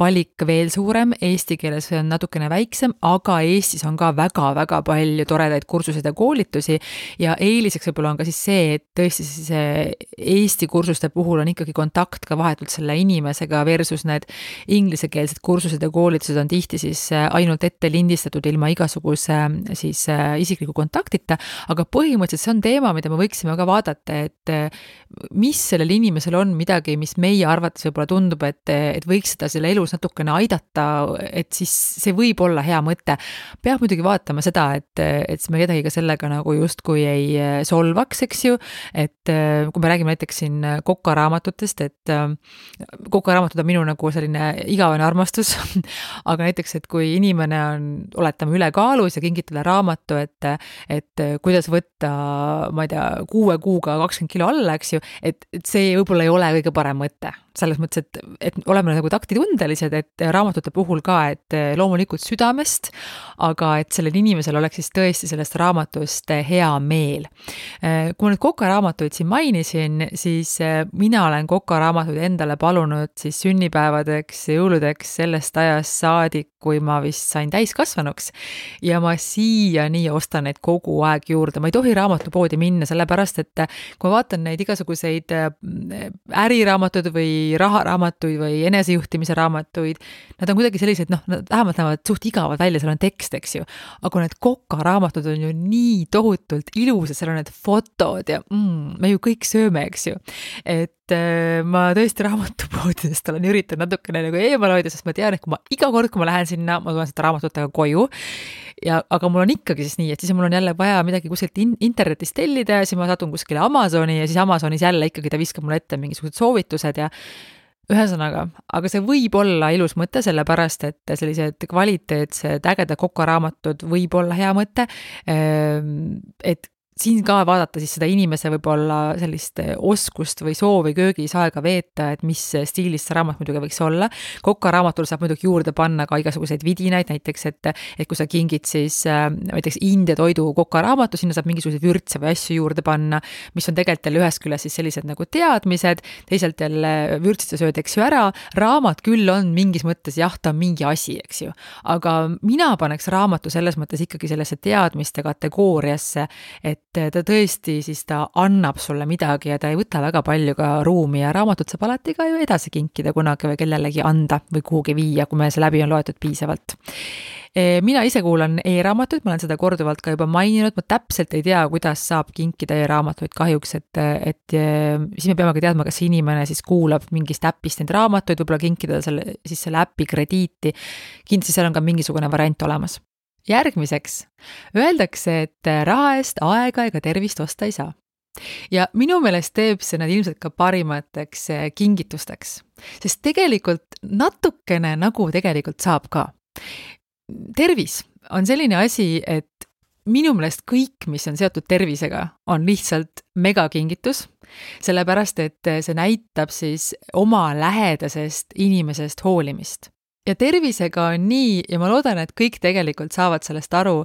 valik veel suurem, eesti keeles on natukene väiksem, aga Eestis on ka väga-väga palju toredaid kursuseid ja koolitusi ja eeliseks võib-olla on ka siis see, et tõesti siis Eesti kursuste puhul on ikkagi kontakt ka vahetult selle inimesega versus need inglisekeelsed kursused ja koolitused on tihti siis ainult ette lindistatud ilma igasuguse siis isikliku kontaktita, aga põhimõtteliselt see on teema, mida me võiksime ka vaadata, et mis sellel inimesel on midagi, mis meie arvates võib-olla tundub, et võiks seda selle elus natukene aidata, et siis see võib olla hea mõte. Peab muidugi vaatama seda, et me kedagi ka sellega nagu justkui ei solvaks, eks ju, et kui me räägime näiteks siin kokaraamatutest, et kokaraamatud on minu nagu selline igavene armastus, aga näiteks, et kui inimene on, oletame, ülekaalus ja kingib talle raamatu, et kuidas võtta, ma ei tea, 6 kuuga 20 kilo alla, eks ju, et see võib-olla ei ole kõige parem mõte. Selles mõttes, et oleme nagu taktitundelised, et raamatute puhul ka, et loomulikult südamest, aga et sellel inimesel oleks siis tõesti sellest raamatust hea meel. Kui ma nüüd kokaraamatuid siin mainisin, siis mina olen kokaraamatuid endale palunud siis sünnipäevadeks ja jõuludeks sellest ajast saadik, kui ma vist sain täiskasvanuks ja ma siiani ostan neid kogu aeg juurde. Ma ei tohi raamatupoodi minna, sellepärast, et kui ma vaatan neid igasuguseid äriraamatuid või raharaamatuid või enesejuhtimise raamatuid, nad on kuidagi sellised, vähemalt näevad suht igavad välja, seal on tekst, eks ju. Aga need kokaraamatud on ju nii tohutult ilusad, seal on need fotod ja me ju kõik sööme, eks ju. Et ma tõesti raamatupoodidest olen üritanud natukene nagu eemal hoida, sest ma tean, et iga kord, kui ma lähen sinna, ma tulen seda raamatutega koju, aga mul on ikkagi siis nii, et siis mul on jälle vaja midagi kuskilt internetist tellida ja siis ma satun kuskile Amazoni ja siis Amazonis jälle ikkagi ta viskab mulle ette mingisugused soovitused ja ühesõnaga, aga see võib olla ilus mõte, sellepärast, et sellised kvaliteetsed ägedad kokaraamatud võib olla hea mõte, et siin ka vaadata siis seda inimese võib-olla sellist oskust või soovi köögis aega veeta, et mis stiilis see raamat muidugi võiks olla. Kokaraamatul saab muidugi juurde panna ka igasuguseid vidinaid, näiteks, et kui sa kingid siis näiteks India toidu kokaraamatu, sinna saab mingisuguseid vürtse või asju juurde panna, mis on tegelikult jälle ühest küljest siis sellised nagu teadmised, teisalt jälle vürtsite sööd, eks ju ära, raamat küll on mingis mõttes, jah, ta on mingi asi, eks ju, aga mina paneks raamatu selles mõttes ikkagi sellesse teadmiste kategooriasse, et ta tõesti siis ta annab sulle midagi ja ta ei võta väga palju ka ruumi ja raamatut saab alati ka ju edasi kinkida kunagi või kellelegi anda või kuhugi viia, kui meil see läbi on loetud piisavalt. Mina ise kuulan e-raamatuid, ma olen seda korduvalt ka juba maininud, ma täpselt ei tea, kuidas saab kinkida e-raamatuid kahjuks, et siis me peame ka teadma, kas inimene siis kuulab mingist äpist neid raamatuid, võib-olla kinkida selle äpi krediiti, kindlasti seal on ka mingisugune variant olemas. Järgmiseks, öeldakse, et raha eest aega ega tervist osta ei saa. Ja minu meelest teeb see nad ilmselt ka parimateks kingitusteks, sest tegelikult natukene nagu tegelikult saab ka. Tervis on selline asi, et minu meelest kõik, mis on seotud tervisega, on lihtsalt megakingitus, sellepärast, et see näitab siis oma lähedasest inimesest hoolimist. Ja tervisega on nii, ja ma loodan, et kõik tegelikult saavad sellest aru,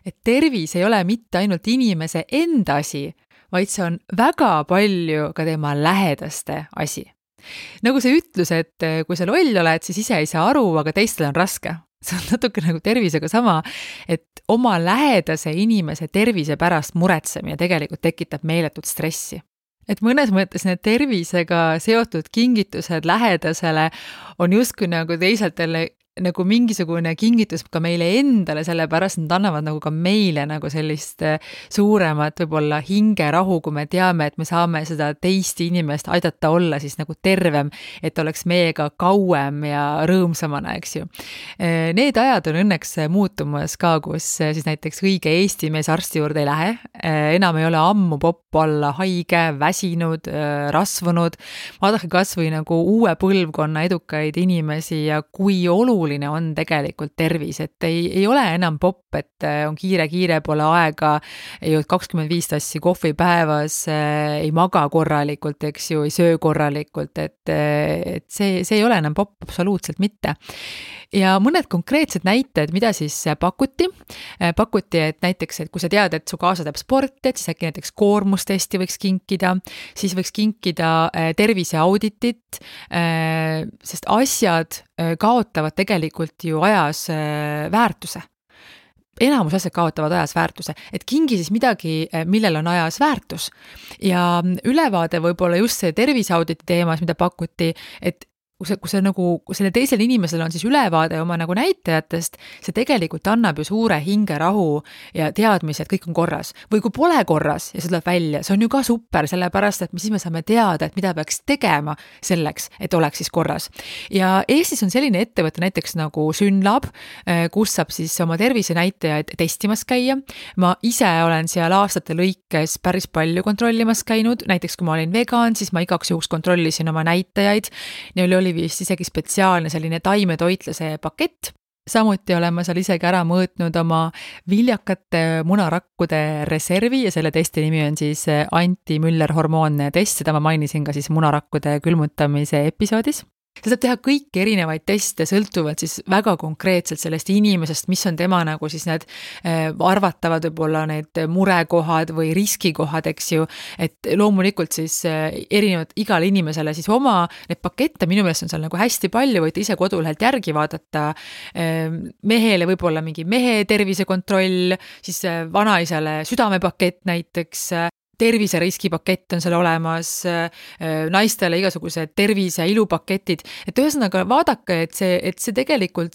et tervis ei ole mitte ainult inimese enda asi, vaid see on väga palju ka tema lähedaste asi. Nagu see ütlus, et kui sa loll oled, siis ise ei saa aru, aga teistel on raske. See on natuke nagu tervisega sama, et oma lähedase inimese tervise pärast muretsemine tegelikult tekitab meeletut stressi. Et mõnes mõttes need tervisega seotud kingitused lähedasele on justkui nagu teisalt jälle nagu mingisugune kingitus ka meile endale, sellepärast nad annavad nagu ka meile nagu sellist suuremat võib-olla hingerahu, kui me teame, et me saame seda teist inimest aidata olla siis nagu tervem, et oleks meiega kauem ja rõõmsamana, eks ju. Need ajad on õnneks muutumas ka, kus siis näiteks õige Eesti mees arsti juurde ei lähe, enam ei ole ammu popp olla haige, väsinud, rasvunud, vaadake kas või nagu uue põlvkonna edukaid inimesi ja kui oluline on tegelikult tervis, et ei ole enam popp, et on kiire, pole aega, ei ole 25 tassi kohvi päevas, ei maga korralikult, eks ju, ei söö korralikult, et see ei ole enam popp absoluutselt mitte. Ja mõned konkreetsed näited, mida siis pakuti, et näiteks, et kui sa tead, et su kaasa teeb sporti, et siis äkki näiteks koormustesti võiks kinkida, siis võiks kinkida terviseauditit, sest asjad kaotavad tegelikult ju ajas väärtuse. Enamus asjad kaotavad ajas väärtuse, et kingi siis midagi, millel on ajas väärtus. Ja ülevaade võib-olla just see terviseauditi teemas, mida pakuti, et kui see nagu, selle teisel inimesel on siis ülevaade oma nagu näitajatest, see tegelikult annab ju suure hingerahu ja teadmise, et kõik on korras. Või kui pole korras ja see tuleb välja, see on ju ka super, sellepärast, et siis me saame teada, et mida peaks tegema selleks, et oleks siis korras. Ja Eestis on selline ettevõte näiteks nagu Synlab, kus saab siis oma tervisenäitajaid testimas käia. Ma ise olen seal aastate lõikes päris palju kontrollimas käinud, näiteks kui ma olin vegan, siis ma igaks juhuks kontrollisin oma näitajaid, neil oli vist isegi spetsiaalne selline taimetoitlase pakett, samuti olen ma seal isegi ära mõõtnud oma viljakate munarakkude reservi ja selle testi nimi on siis anti-Müller-hormoonne test, seda ma mainisin ka siis munarakkude külmutamise episoodis. Ta saab teha kõiki erinevaid teste, sõltuvalt siis väga konkreetselt sellest inimesest, mis on tema nagu siis need arvatavad võib-olla need murekohad või riskikohad, eks ju, et loomulikult siis erinevad igale inimesele siis oma need pakette, minu meelest on seal nagu hästi palju, võite ise kodulehelt järgi vaadata, mehele võib-olla mingi mehe tervisekontroll, siis vanaisale südamepakett näiteks, terviseriskipakett on seal olemas, naistele igasugused tervise- ja ilupaketid, et ühesõnaga vaadake, et see tegelikult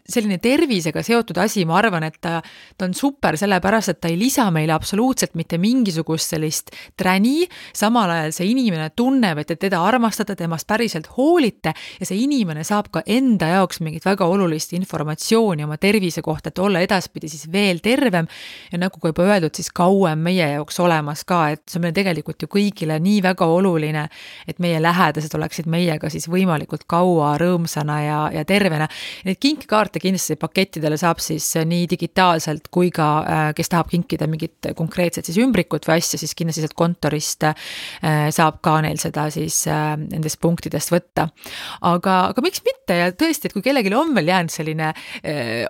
selline tervisega seotud asi, ma arvan, et ta on super sellepärast, et ta ei lisa meile absoluutselt mitte mingisugust sellist träni, samal ajal see inimene tunneb, et teda armastada, temast päriselt hoolite ja see inimene saab ka enda jaoks mingit väga olulist informatsiooni oma tervise kohta, et olla edaspidi siis veel tervem ja nagu ka juba öeldud, siis kauem meie jaoks olemas ka, et see on meil tegelikult ju kõigile nii väga oluline, et meie lähedased oleksid meiega siis võimalikult kaua rõõmsana ja tervena. Need kinkikaarte kindlasti pakettidele saab siis nii digitaalselt kui ka, kes tahab kinkida mingit konkreetset siis ümbrikut või asja, siis kindlasti sealt kontorist saab ka neil seda siis nendest punktidest võtta. Aga miks mitte ja tõesti, et kui kellelgi on veel jäänud selline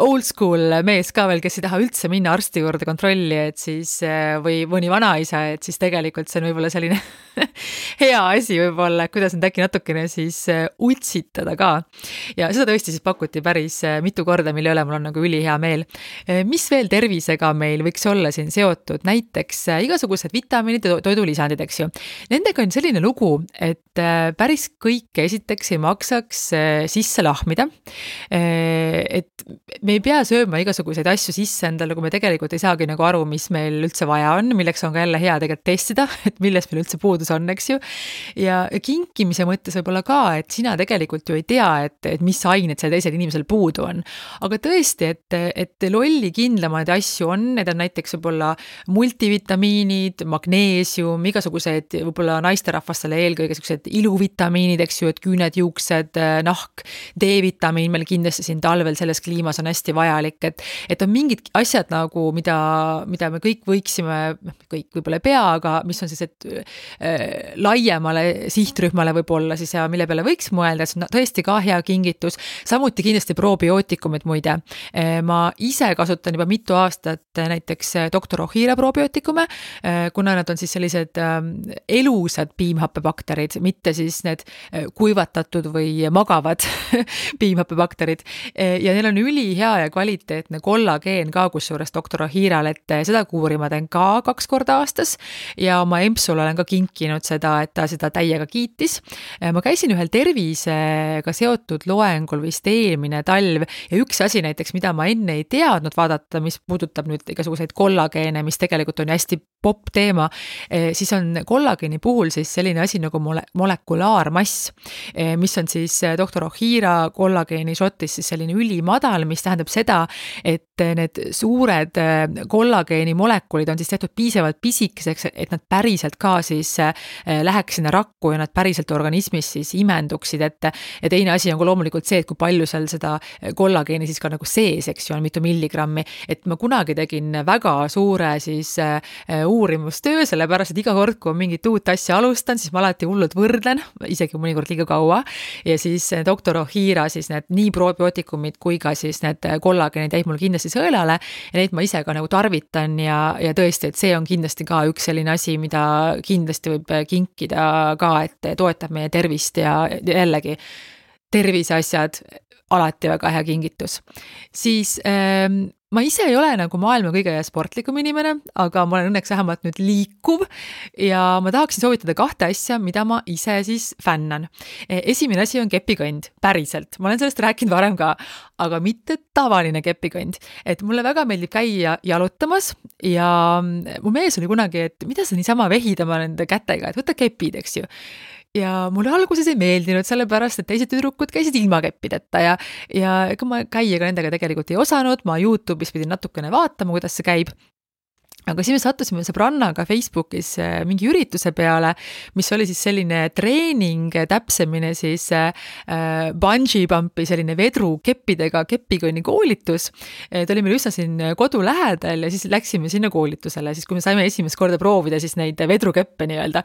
old school mees ka veel, kes ei taha üldse minna arsti juurde kontrolli, et siis või mõni vanaisa, et siis tegelikult see on võib-olla selline hea asi võib-olla, kuidas nüüd äkki natukene siis utsitada ka. Ja seda tõesti siis pakuti päris mitu korda, mille üle mul on nagu ülihea meel. Mis veel tervisega meil võiks olla siin seotud? Näiteks igasugused vitamiinid ja toidulisandid, eks ju. Nendega on selline lugu, et päris kõike esiteks ei maksaks sisse lahmida. Et me ei pea sööma igasuguseid asju sisse endale, kui me tegelikult ei saagi nagu aru, mis meil üldse vaja on, milleks on ka jälle hea tegelikult testida, et millest meil üldse puudus on, eks ju. Ja kinkimise mõttes võib-olla ka, et sina tegelikult ju ei tea, et mis ained seal teisel inimesel puudu on. Aga tõesti, et lolli kindlamaid asju on, need on näiteks võib-olla multivitamiinid, magneesium, igasugused võib-olla naisterahvastele eelkõige sellised iluvitamiinid, eks ju, et küüned, juuksed, nahk, D-vitamiin meil kindlasti siin talvel selles kliimas on hästi vajalik, et on mingid asjad nagu, mida me kõik võiksime, kõik võib-olla ei pea, aga mis on siis, et laiemale sihtrühmale võib-olla siis ja mille peale võiks mõelda, see on tõesti ka hea kingitus, samuti kindlasti probiootikumid muide. Ma ise kasutan juba mitu aastat näiteks Dr. Ohira probiootikume, kuna nad on siis sellised elusad piimhappebakterid, mitte siis need kuivatatud või magavad piimhappebakterid ja neil on ülihea ja kvaliteetne kollageen ka kusjuures Dr. Ohiral, et seda kuuri ma teen ka 2 korda aastas ja oma empsule olen ka kinkinud seda, et ta seda täiega kiitis. Ma käisin ühel tervisega seotud loengul vist eelmine talv ja üks asi näiteks, mida ma enne ei teadnud vaadata, mis puudutab nüüd igasuguseid kollageene, mis tegelikult on hästi popp teema, siis on kollageeni puhul siis selline asi nagu molekulaarmass, mis on siis Dr. Ohira kollageeni šotis siis selline ülimadal, mis tähendab seda, et need suured kollageeni molekulid on siis tehtud piisavalt pisikeseks, et nad päriselt ka siis läheks sinna rakku ja nad päriselt organismis siis imenduksid, et ja teine asi on ka loomulikult see, et kui palju seal seda kollageeni siis ka nagu sees, eks ju, on mitu milligrammi, et ma kunagi tegin väga suure siis uurimustöö, sellepärast, et iga kord, kui on mingit uut asja alustan, siis ma alati hullult võrdlen, isegi mõnikord liiga kaua, ja siis Dr. Ohira siis need nii probiootikumid kui ka siis need kollageenid jäid mul kindlasti sõelale ja neid ma ise ka nagu tarvitan ja tõesti, et see on kindlasti ka üks selline asi, mida kindlasti võib kinkida ka, et toetab meie tervist ja jällegi terviseasjad alati väga hea kingitus. Siis ma ise ei ole nagu maailma kõige sportlikum inimene, aga ma olen õnneks vähemalt nüüd liikuv ja ma tahaksin soovitada 2 asja, mida ma ise siis fännan. Esimene asi on kepikõnd, päriselt. Ma olen sellest rääkinud varem ka, aga mitte tavaline kepikõnd. Et mulle väga meeldib käia jalutamas ja mu mees oli kunagi, et mida sa niisama vehidama nende kätega, et võta kepid, eks ju. Ja mulle alguses ei meeldinud sellepärast, et teised tüdrukud käisid ilma keppideta ja ega ma käia ka nendega tegelikult ei osanud, ma YouTube'is pidin natukene vaatama, kuidas see käib. aga siis me sattusime sõbrannaga Facebookis mingi ürituse peale, mis oli siis selline treening, täpsemini siis bungee pumpi, selline vedrukeppidega kepikonni koolitus. Ta oli meil üsna siin kodu lähedal ja siis läksime sinna koolitusele, siis kui me saime esimest korda proovida siis neid vedrukeppe nii-öelda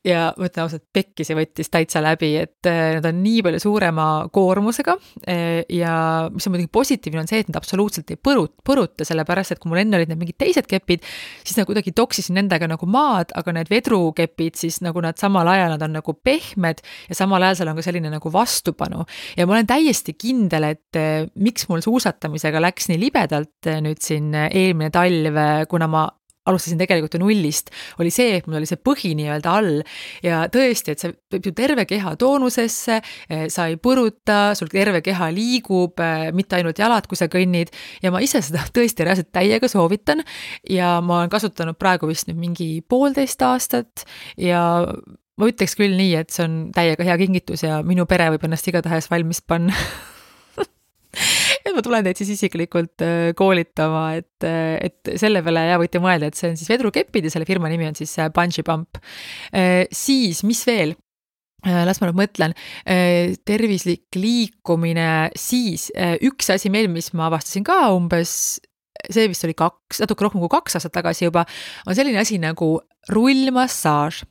ja mõtlen ausalt, pekkisi võttis täitsa läbi, et nad on nii palju suurema koormusega ja mis on muidugi positiivne on see, et nad absoluutselt ei põruta, sellepärast, et kui mul enne olid need mingid teised kepid, siis nad kuidagi toksisin nendega nagu maad, aga need vedrukepid siis nagu nad samal ajal, nad on nagu pehmed ja samal ajal seal on ka selline nagu vastupanu. Ja ma olen täiesti kindel, et miks mul suusatamisega läks nii libedalt nüüd siin eelmine talv, kuna ma alustasin tegelikult ju nullist, oli see, et mul oli see põhi nii-öelda all ja tõesti, et see võib ju terve keha toonusesse, sa ei põruta, sul terve keha liigub, mitte ainult jalad, kui sa kõnnid ja ma ise seda tõesti reaalselt täiega soovitan ja ma olen kasutanud praegu vist nüüd mingi 1,5 aastat ja ma ütleks küll nii, et see on täiega hea kingitus ja minu pere võib ennast igatahes valmis panna. Et ma tulen teid siis isiklikult koolitama, et selle peale ja võite mõelda, et see on siis vedrukeppid ja selle firma nimi on siis Bungee Pump. Siis, mis veel? Las ma nüüd mõtlen, tervislik liikumine, siis üks asi meil, mis ma avastasin ka umbes, see vist oli natuke rohkem kui 2 aastat tagasi juba, on selline asi nagu rullmassaaž.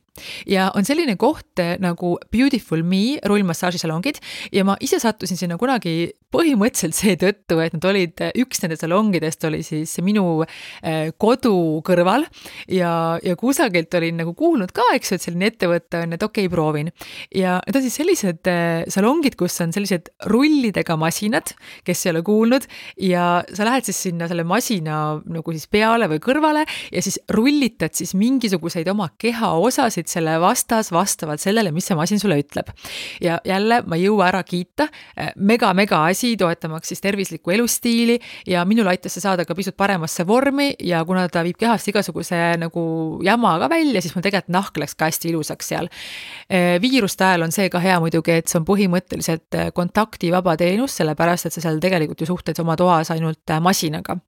Ja on selline koht nagu Beautiful Me rullmassaažisalongid ja ma ise sattusin sinna kunagi põhimõtteliselt seetõttu, et nad olid, üks nende salongidest oli siis minu kodu kõrval ja kusagilt olin nagu kuulnud ka, eks, et selline ettevõte on, et okei, proovin. Ja need on siis sellised salongid, kus on sellised rullidega masinad, kes ei ole kuulnud ja sa lähed siis sinna selle masina nagu siis peale või kõrvale ja siis rullitad siis mingisuguseid oma keha osasid selle vastavalt sellele, mis see masin sulle ütleb. Ja jälle ma ei jõua ära kiita, mega asi, toetamaks siis tervislikku elustiili ja minul aitas see saada ka pisut paremasse vormi ja kuna ta viib kehast igasuguse nagu jama ka välja, siis mul tegelikult nahk läks ka hästi ilusaks seal. Viiruste ajal on see ka hea muidugi, et see on põhimõtteliselt kontaktivaba teenus, sellepärast, et sa seal tegelikult ju suhted oma toas ainult masinaga.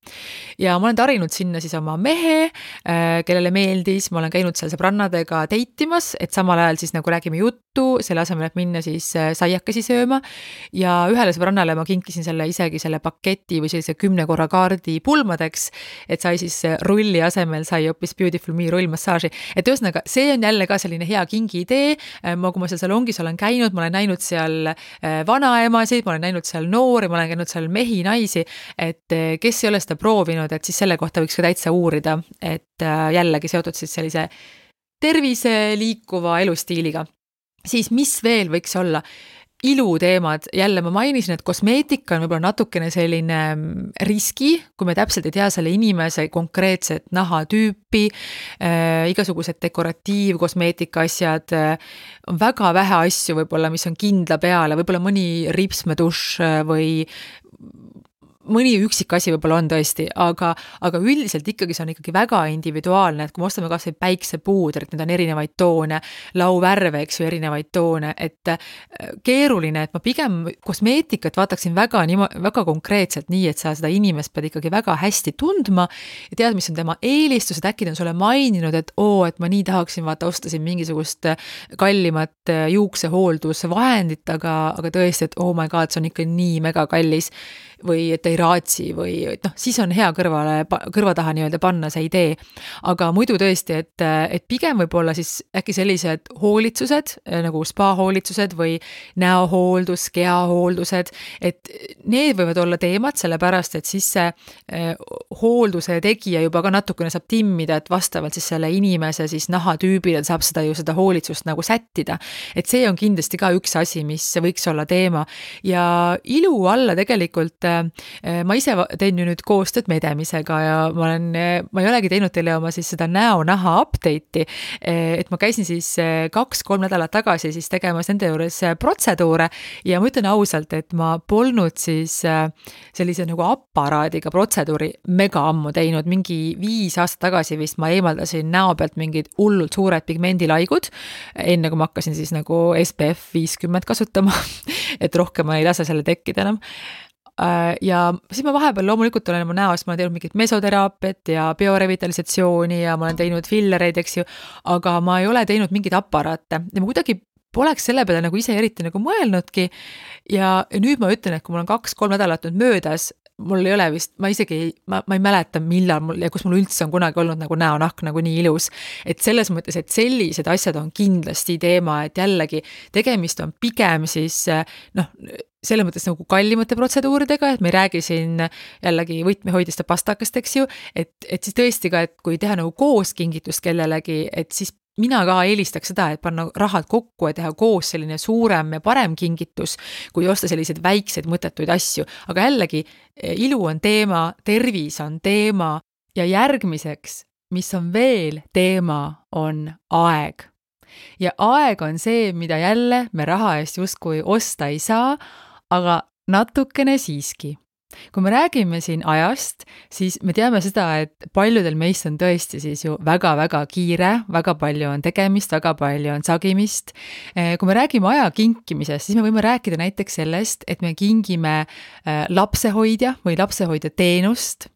Ja ma olen tarinud sinna siis oma mehe, kellele meeldis, ma olen käinud seal sõbrannadega teitimas, et samal ajal siis nagu räägime juttu, selle asemel, et minna siis saiakesi sööma ja ühele sõbrannale ma kinkisin isegi selle paketi või sellise 10 korra kaardi pulmadeks, et sai siis rulli asemel sai hoopis Beautiful Me rullmassaaži. Et ühesõnaga, see on jälle ka selline hea kingi idee, kui ma seal salongis olen käinud, ma olen näinud seal vanaemasid, ma olen näinud seal noori, ma olen käinud seal mehi, naisi, et kes ei ole seda proovinud, et siis selle kohta võiks ka täitsa uurida, et jällegi seotud siis sellise tervise liikuva elustiiliga. Siis mis veel võiks olla? Iluteemad, jälle ma mainisin, et kosmeetika on võib-olla natukene selline riski, kui me täpselt ei tea selle inimese konkreetset nahatüüpi, igasugused dekoratiivkosmeetika asjad, on väga vähe asju võib-olla, mis on kindla peale, võib-olla mõni ripsmedušš või mõni üksik asi võib-olla on tõesti, aga üldiselt ikkagi see on ikkagi väga individuaalne, et kui me ostame kas või päiksepuudrit, need on erinevaid toone, lauvärve, eks ju, erinevaid toone, et keeruline, et ma pigem kosmeetikat vaataksin väga konkreetselt nii, et sa seda inimest pead ikkagi väga hästi tundma ja tead, mis on tema eelistused, äkki ta on sulle maininud, et et ma nii tahaksin ostasin mingisugust kallimat juuksehooldusvahendit, aga tõesti, et oh my god, see on ikka nii mega kallis või et ei raatsi või siis on hea kõrva taha nii-öelda panna see idee. Aga muidu tõesti, et pigem võib-olla siis äkki sellised hoolitsused, nagu spa-hoolitsused või näohooldus, keahooldused, et need võivad olla teemad, sellepärast, et siis see hoolduse tegija juba ka natukene saab timmida, et vastavalt siis selle inimese siis nahatüübile saab seda hoolitsust nagu sättida. Et see on kindlasti ka üks asi, mis võiks olla teema. Ja ilu alla tegelikult ma ise teen ju nüüd koostööd Medemisega ja ma ei olegi teinud teile oma siis seda näo-naha update'i, et ma käisin siis 2-3 nädalat tagasi siis tegemas nende juures protseduure ja ma ütlen ausalt, et ma polnud siis sellise nagu aparaadiga protseduuri mega ammu teinud, mingi 5 aastat tagasi vist ma eemaldasin näo pealt mingid hullult suured pigmendilaigud, enne kui ma hakkasin siis nagu SPF 50 kasutama, et rohkem ma ei lase selle tekkida enam. ja siis ma vahepeal loomulikult olen oma näost, ma olen teinud mingit mesoteraapiat ja biorevitalisatsiooni ja ma olen teinud fillereid, eks ju, aga ma ei ole teinud mingeid aparaate ja ma kuidagi poleks selle peale nagu ise eriti nagu mõelnudki ja nüüd ma ütlen, et kui mul on 2-3 nädalat nüüd möödas, mul ei ole vist, ma ei mäleta millal mul ja kus mul üldse on kunagi olnud nagu näonahk nagu nii ilus, et selles mõttes, et sellised asjad on kindlasti teema, et jällegi tegemist on pigem siis selles mõttes nagu kallimate protseduuridega, et me ei räägi siin jällegi võtmehoidiste pastakast, eks ju, et siis tõesti ka, et kui teha nagu koos kingitust kellelegi, et siis mina ka eelistaks seda, et panna rahad kokku ja teha koos selline suurem ja parem kingitus, kui osta selliseid väikseid mõttetuid asju. Aga jällegi, ilu on teema, tervis on teema ja järgmiseks, mis on veel teema, on aeg. Ja aeg on see, mida jälle me raha eest justkui osta ei saa, aga natukene siiski. Kui me räägime siin ajast, siis me teame seda, et paljudel meist on tõesti siis ju väga-väga kiire, väga palju on tegemist, väga palju on sagimist. Kui me räägime aja kinkimisest, siis me võime rääkida näiteks sellest, et me kingime lapsehoidja või lapsehoidja teenust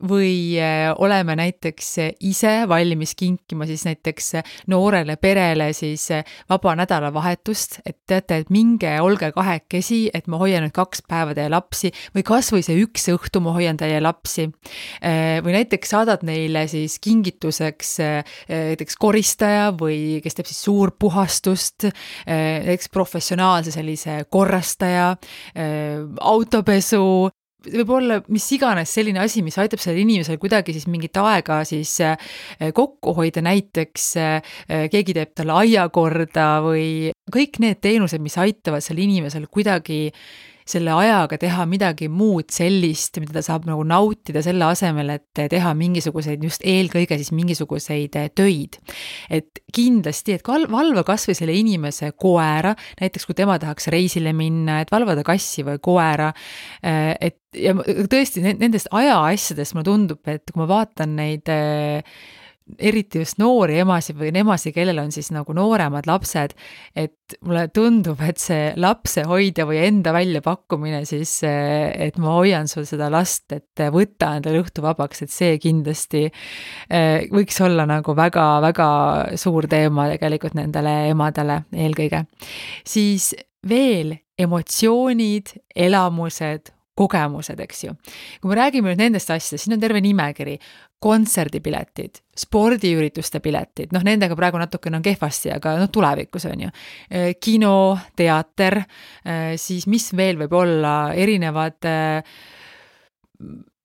või oleme näiteks ise valmis kinkima siis näiteks noorele perele siis vaba nädalavahetust, et teate, et minge, olge kahekesi, et ma hoian nüüd 2 päeva teie lapsi või kas või see 1 õhtu ma hoian teie lapsi. Või näiteks saadad neile siis kingituseks näiteks koristaja või kes teeb siis suurpuhastust, näiteks professionaalse sellise korrastaja, autopesu, võib olla mis iganes selline asi, mis aitab sellel inimesel kuidagi siis mingit aega siis kokku hoida, näiteks keegi teeb talle aia korda või kõik need teenused, mis aitavad sellel inimesel kuidagi selle ajaga teha midagi muud sellist, mida ta saab nagu nautida selle asemel, et teha mingisuguseid, just eelkõige siis mingisuguseid töid. Et kindlasti, et valva kas või selle inimese koera, näiteks kui tema tahaks reisile minna, et valvada kassi või koera, et ja tõesti nendest ajaasjadest mulle tundub, et kui ma vaatan neid eriti just noori emasid või emasid, kellel on siis nagu nooremad lapsed, et mulle tundub, et see lapsehoidja või enda väljapakkumine siis, et ma hoian sul seda last, et võtta endale õhtu vabaks, et see kindlasti võiks olla nagu väga-väga suur teema tegelikult nendele emadele eelkõige. Siis veel emotsioonid, elamused, kogemused, eks ju. Kui me räägime nüüd nendest asjadest, siin on terve nimekiri, kontserdipiletid, spordiürituste piletid, nendega praegu natukene on kehvasti, aga tulevikus on ju. Kino, teater, siis mis veel võib olla, erinevad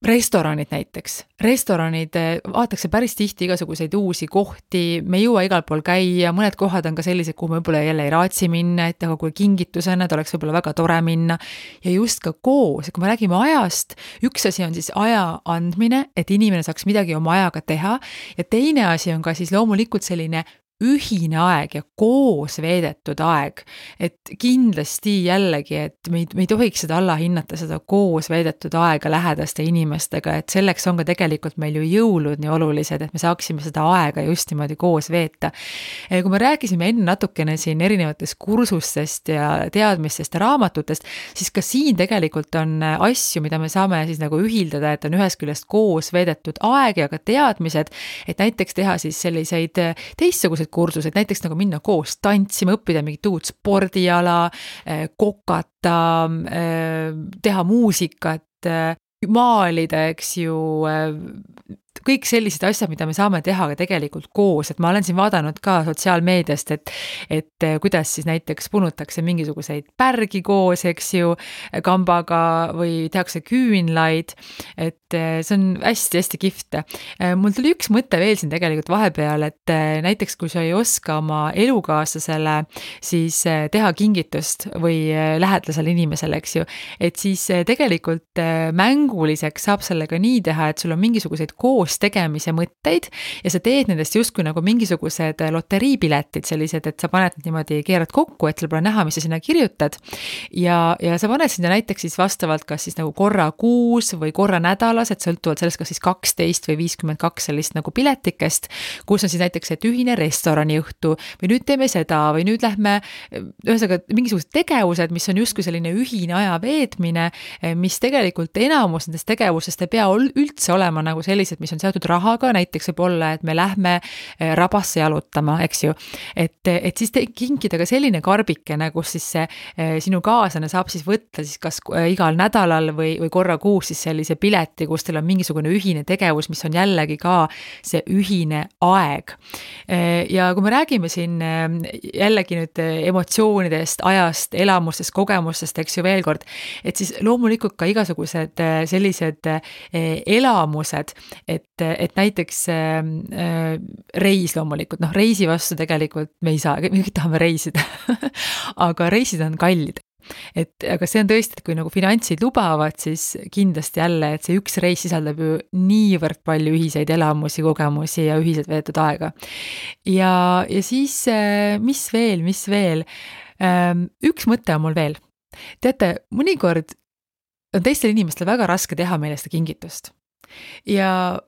restoranid näiteks. Restoranid, vaadatakse päris tihti igasuguseid uusi kohti, me ei jõua igal pool käia, mõned kohad on ka sellised, kuhu me võib-olla jälle ei raatsi minna, et aga kui kingitusena, ta oleks võib-olla väga tore minna. Ja just ka koos, kui me räägime ajast, üks asi on siis aja andmine, et inimene saaks midagi oma ajaga teha, ja teine asi on ka siis loomulikult selline ühine aeg ja koos veedetud aeg, et kindlasti jällegi, et me ei tohiks seda allahinnata, seda koos veedetud aega lähedaste inimestega, et selleks on ka tegelikult meil ju jõulud nii olulised, et me saaksime seda aega just niimoodi koos veeta. Kui me rääkisime enne natukene siin erinevatest kursustest ja teadmistest ja raamatutest, siis ka siin tegelikult on asju, mida me saame siis nagu ühildada, et on ühest küljest koos veedetud aeg ja ka teadmised, et näiteks teha siis selliseid teistsugused kursused, näiteks nagu minna koos tantsima, õppida mingit uut spordiala, kokata, teha muusikat, maalida, eks ju, kõik sellised asjad, mida me saame teha ka tegelikult koos, et ma olen siin vaadanud ka sotsiaalmeediast, et kuidas siis näiteks punutakse mingisuguseid pärgi koos, eks ju, kambaga või tehakse küünlaid, et see on hästi-hästi kihvt. Mul tuli üks mõte veel siin tegelikult vahepeal, et näiteks kui sa ei oska oma elukaaslasele siis teha kingitust või lähedasele inimesele, eks ju, et siis tegelikult mänguliseks saab sellega nii teha, et sul on mingisuguseid koos koos tegemise mõtteid ja sa teed nendest justkui nagu mingisugused loteriipiletid sellised, et sa paned niimoodi, keerad kokku, et sul pole näha, mis sa sinna kirjutad ja sa paned sinna näiteks siis vastavalt kas siis nagu korra kuus või korra nädalas, et sõltuvalt sellest, kas siis 12 või 52 sellist nagu piletikest, kus on siis näiteks et ühine restoraniõhtu või nüüd teeme seda või nüüd lähme ühesõnaga mingisugused tegevused, mis on justkui selline ühine aja veetmine, mis tegelikult enamus nendest tegevusest ei pea üldse olema nagu sellised, mis on seotud rahaga, näiteks võib olla, et me lähme rabasse jalutama, eks ju. Et siis kinkida ka selline karbikene, kus siis see sinu kaaslane saab siis võtta siis kas igal nädalal või korra kuus siis sellise pileti, kus teil on mingisugune ühine tegevus, mis on jällegi ka see ühine aeg. Ja kui me räägime siin jällegi nüüd emotsioonidest, ajast, elamustest, kogemustest, eks ju veel kord, et siis loomulikult ka igasugused sellised elamused, et näiteks reis loomulikult, reisi vastu tegelikult me ei saa, me kõik tahame reisida, aga reisid on kallid. Aga see on tõesti, et kui nagu finantsid lubavad, siis kindlasti jälle, et see üks reis sisaldab ju niivõrd palju ühiseid elamusi, kogemusi ja ühiselt veetud aega. Ja siis, mis veel? Üks mõte on mul veel. Teate, mõnikord on teistel inimestel väga raske teha meile seda kingitust. Ja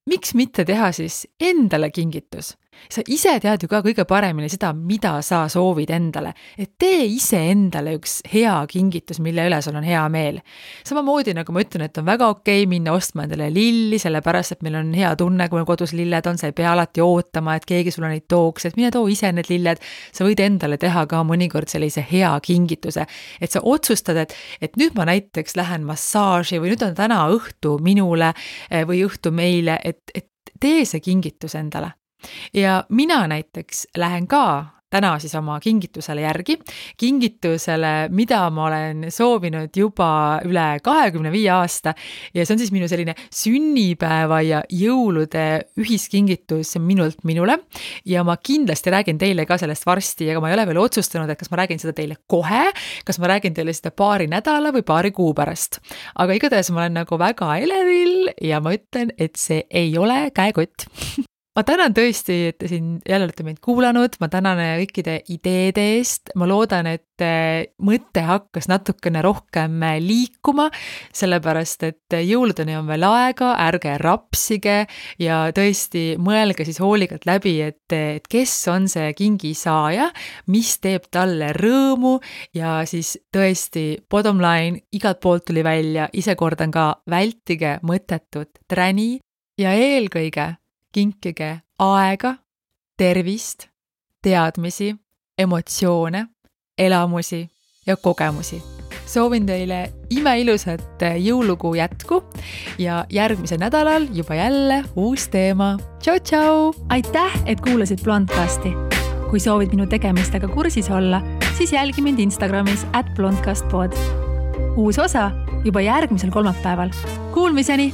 miks mitte teha siis endale kingitus? Sa ise tead ju ka kõige paremini seda, mida sa soovid endale. Et tee ise endale üks hea kingitus, mille üle sul on hea meel. Samamoodi nagu ma ütlen, et on väga okei minna ostma endale lilli, sellepärast, et meil on hea tunne, kui meil kodus lilled on, sa ei pea alati ootama, et keegi sulle neid tooks, et mine too ise need lilled. Sa võid endale teha ka mõnikord sellise hea kingituse, et sa otsustad, et nüüd ma näiteks lähen massaaži või nüüd on täna õhtu minule või õhtu meile, et tee see kingitus endale. Ja mina näiteks lähen ka täna siis oma kingitusele järgi, kingitusele, mida ma olen soovinud juba üle 25 aasta ja see on siis minu selline sünnipäeva ja jõulude ühiskingitus minult minule ja ma kindlasti räägin teile ka sellest varsti, aga ma ei ole veel otsustanud, et kas ma räägin seda teile kohe, kas ma räägin teile seda paari nädala või paari kuu pärast. Aga igatahes ma olen nagu väga elevil ja ma ütlen, et see ei ole käekott. Ma tänan tõesti, et te siin jälle olete meid kuulanud, ma tänan kõikide ideede eest, ma loodan, et mõte hakkas natukene rohkem liikuma, sellepärast, et jõuludeni on veel aega, ärge rapsige ja tõesti mõelge siis hoolikalt läbi, et kes on see kingisaaja, mis teeb talle rõõmu ja siis tõesti bottom line, igalt poolt tuli välja, ise kordan ka, vältige mõttetut träni ja eelkõige kinkige aega, tervist, teadmisi, emotsioone, elamusi ja kogemusi. Soovin teile imeilusat jõulukuu jätku ja järgmisel nädalal juba jälle uus teema. Tšau, tšau! Aitäh, et kuulasid Blondcasti. Kui soovid minu tegemistega kursis olla, siis jälgi mind Instagramis @blondcastpod. Uus osa juba järgmisel kolmapäeval. Kuulmiseni!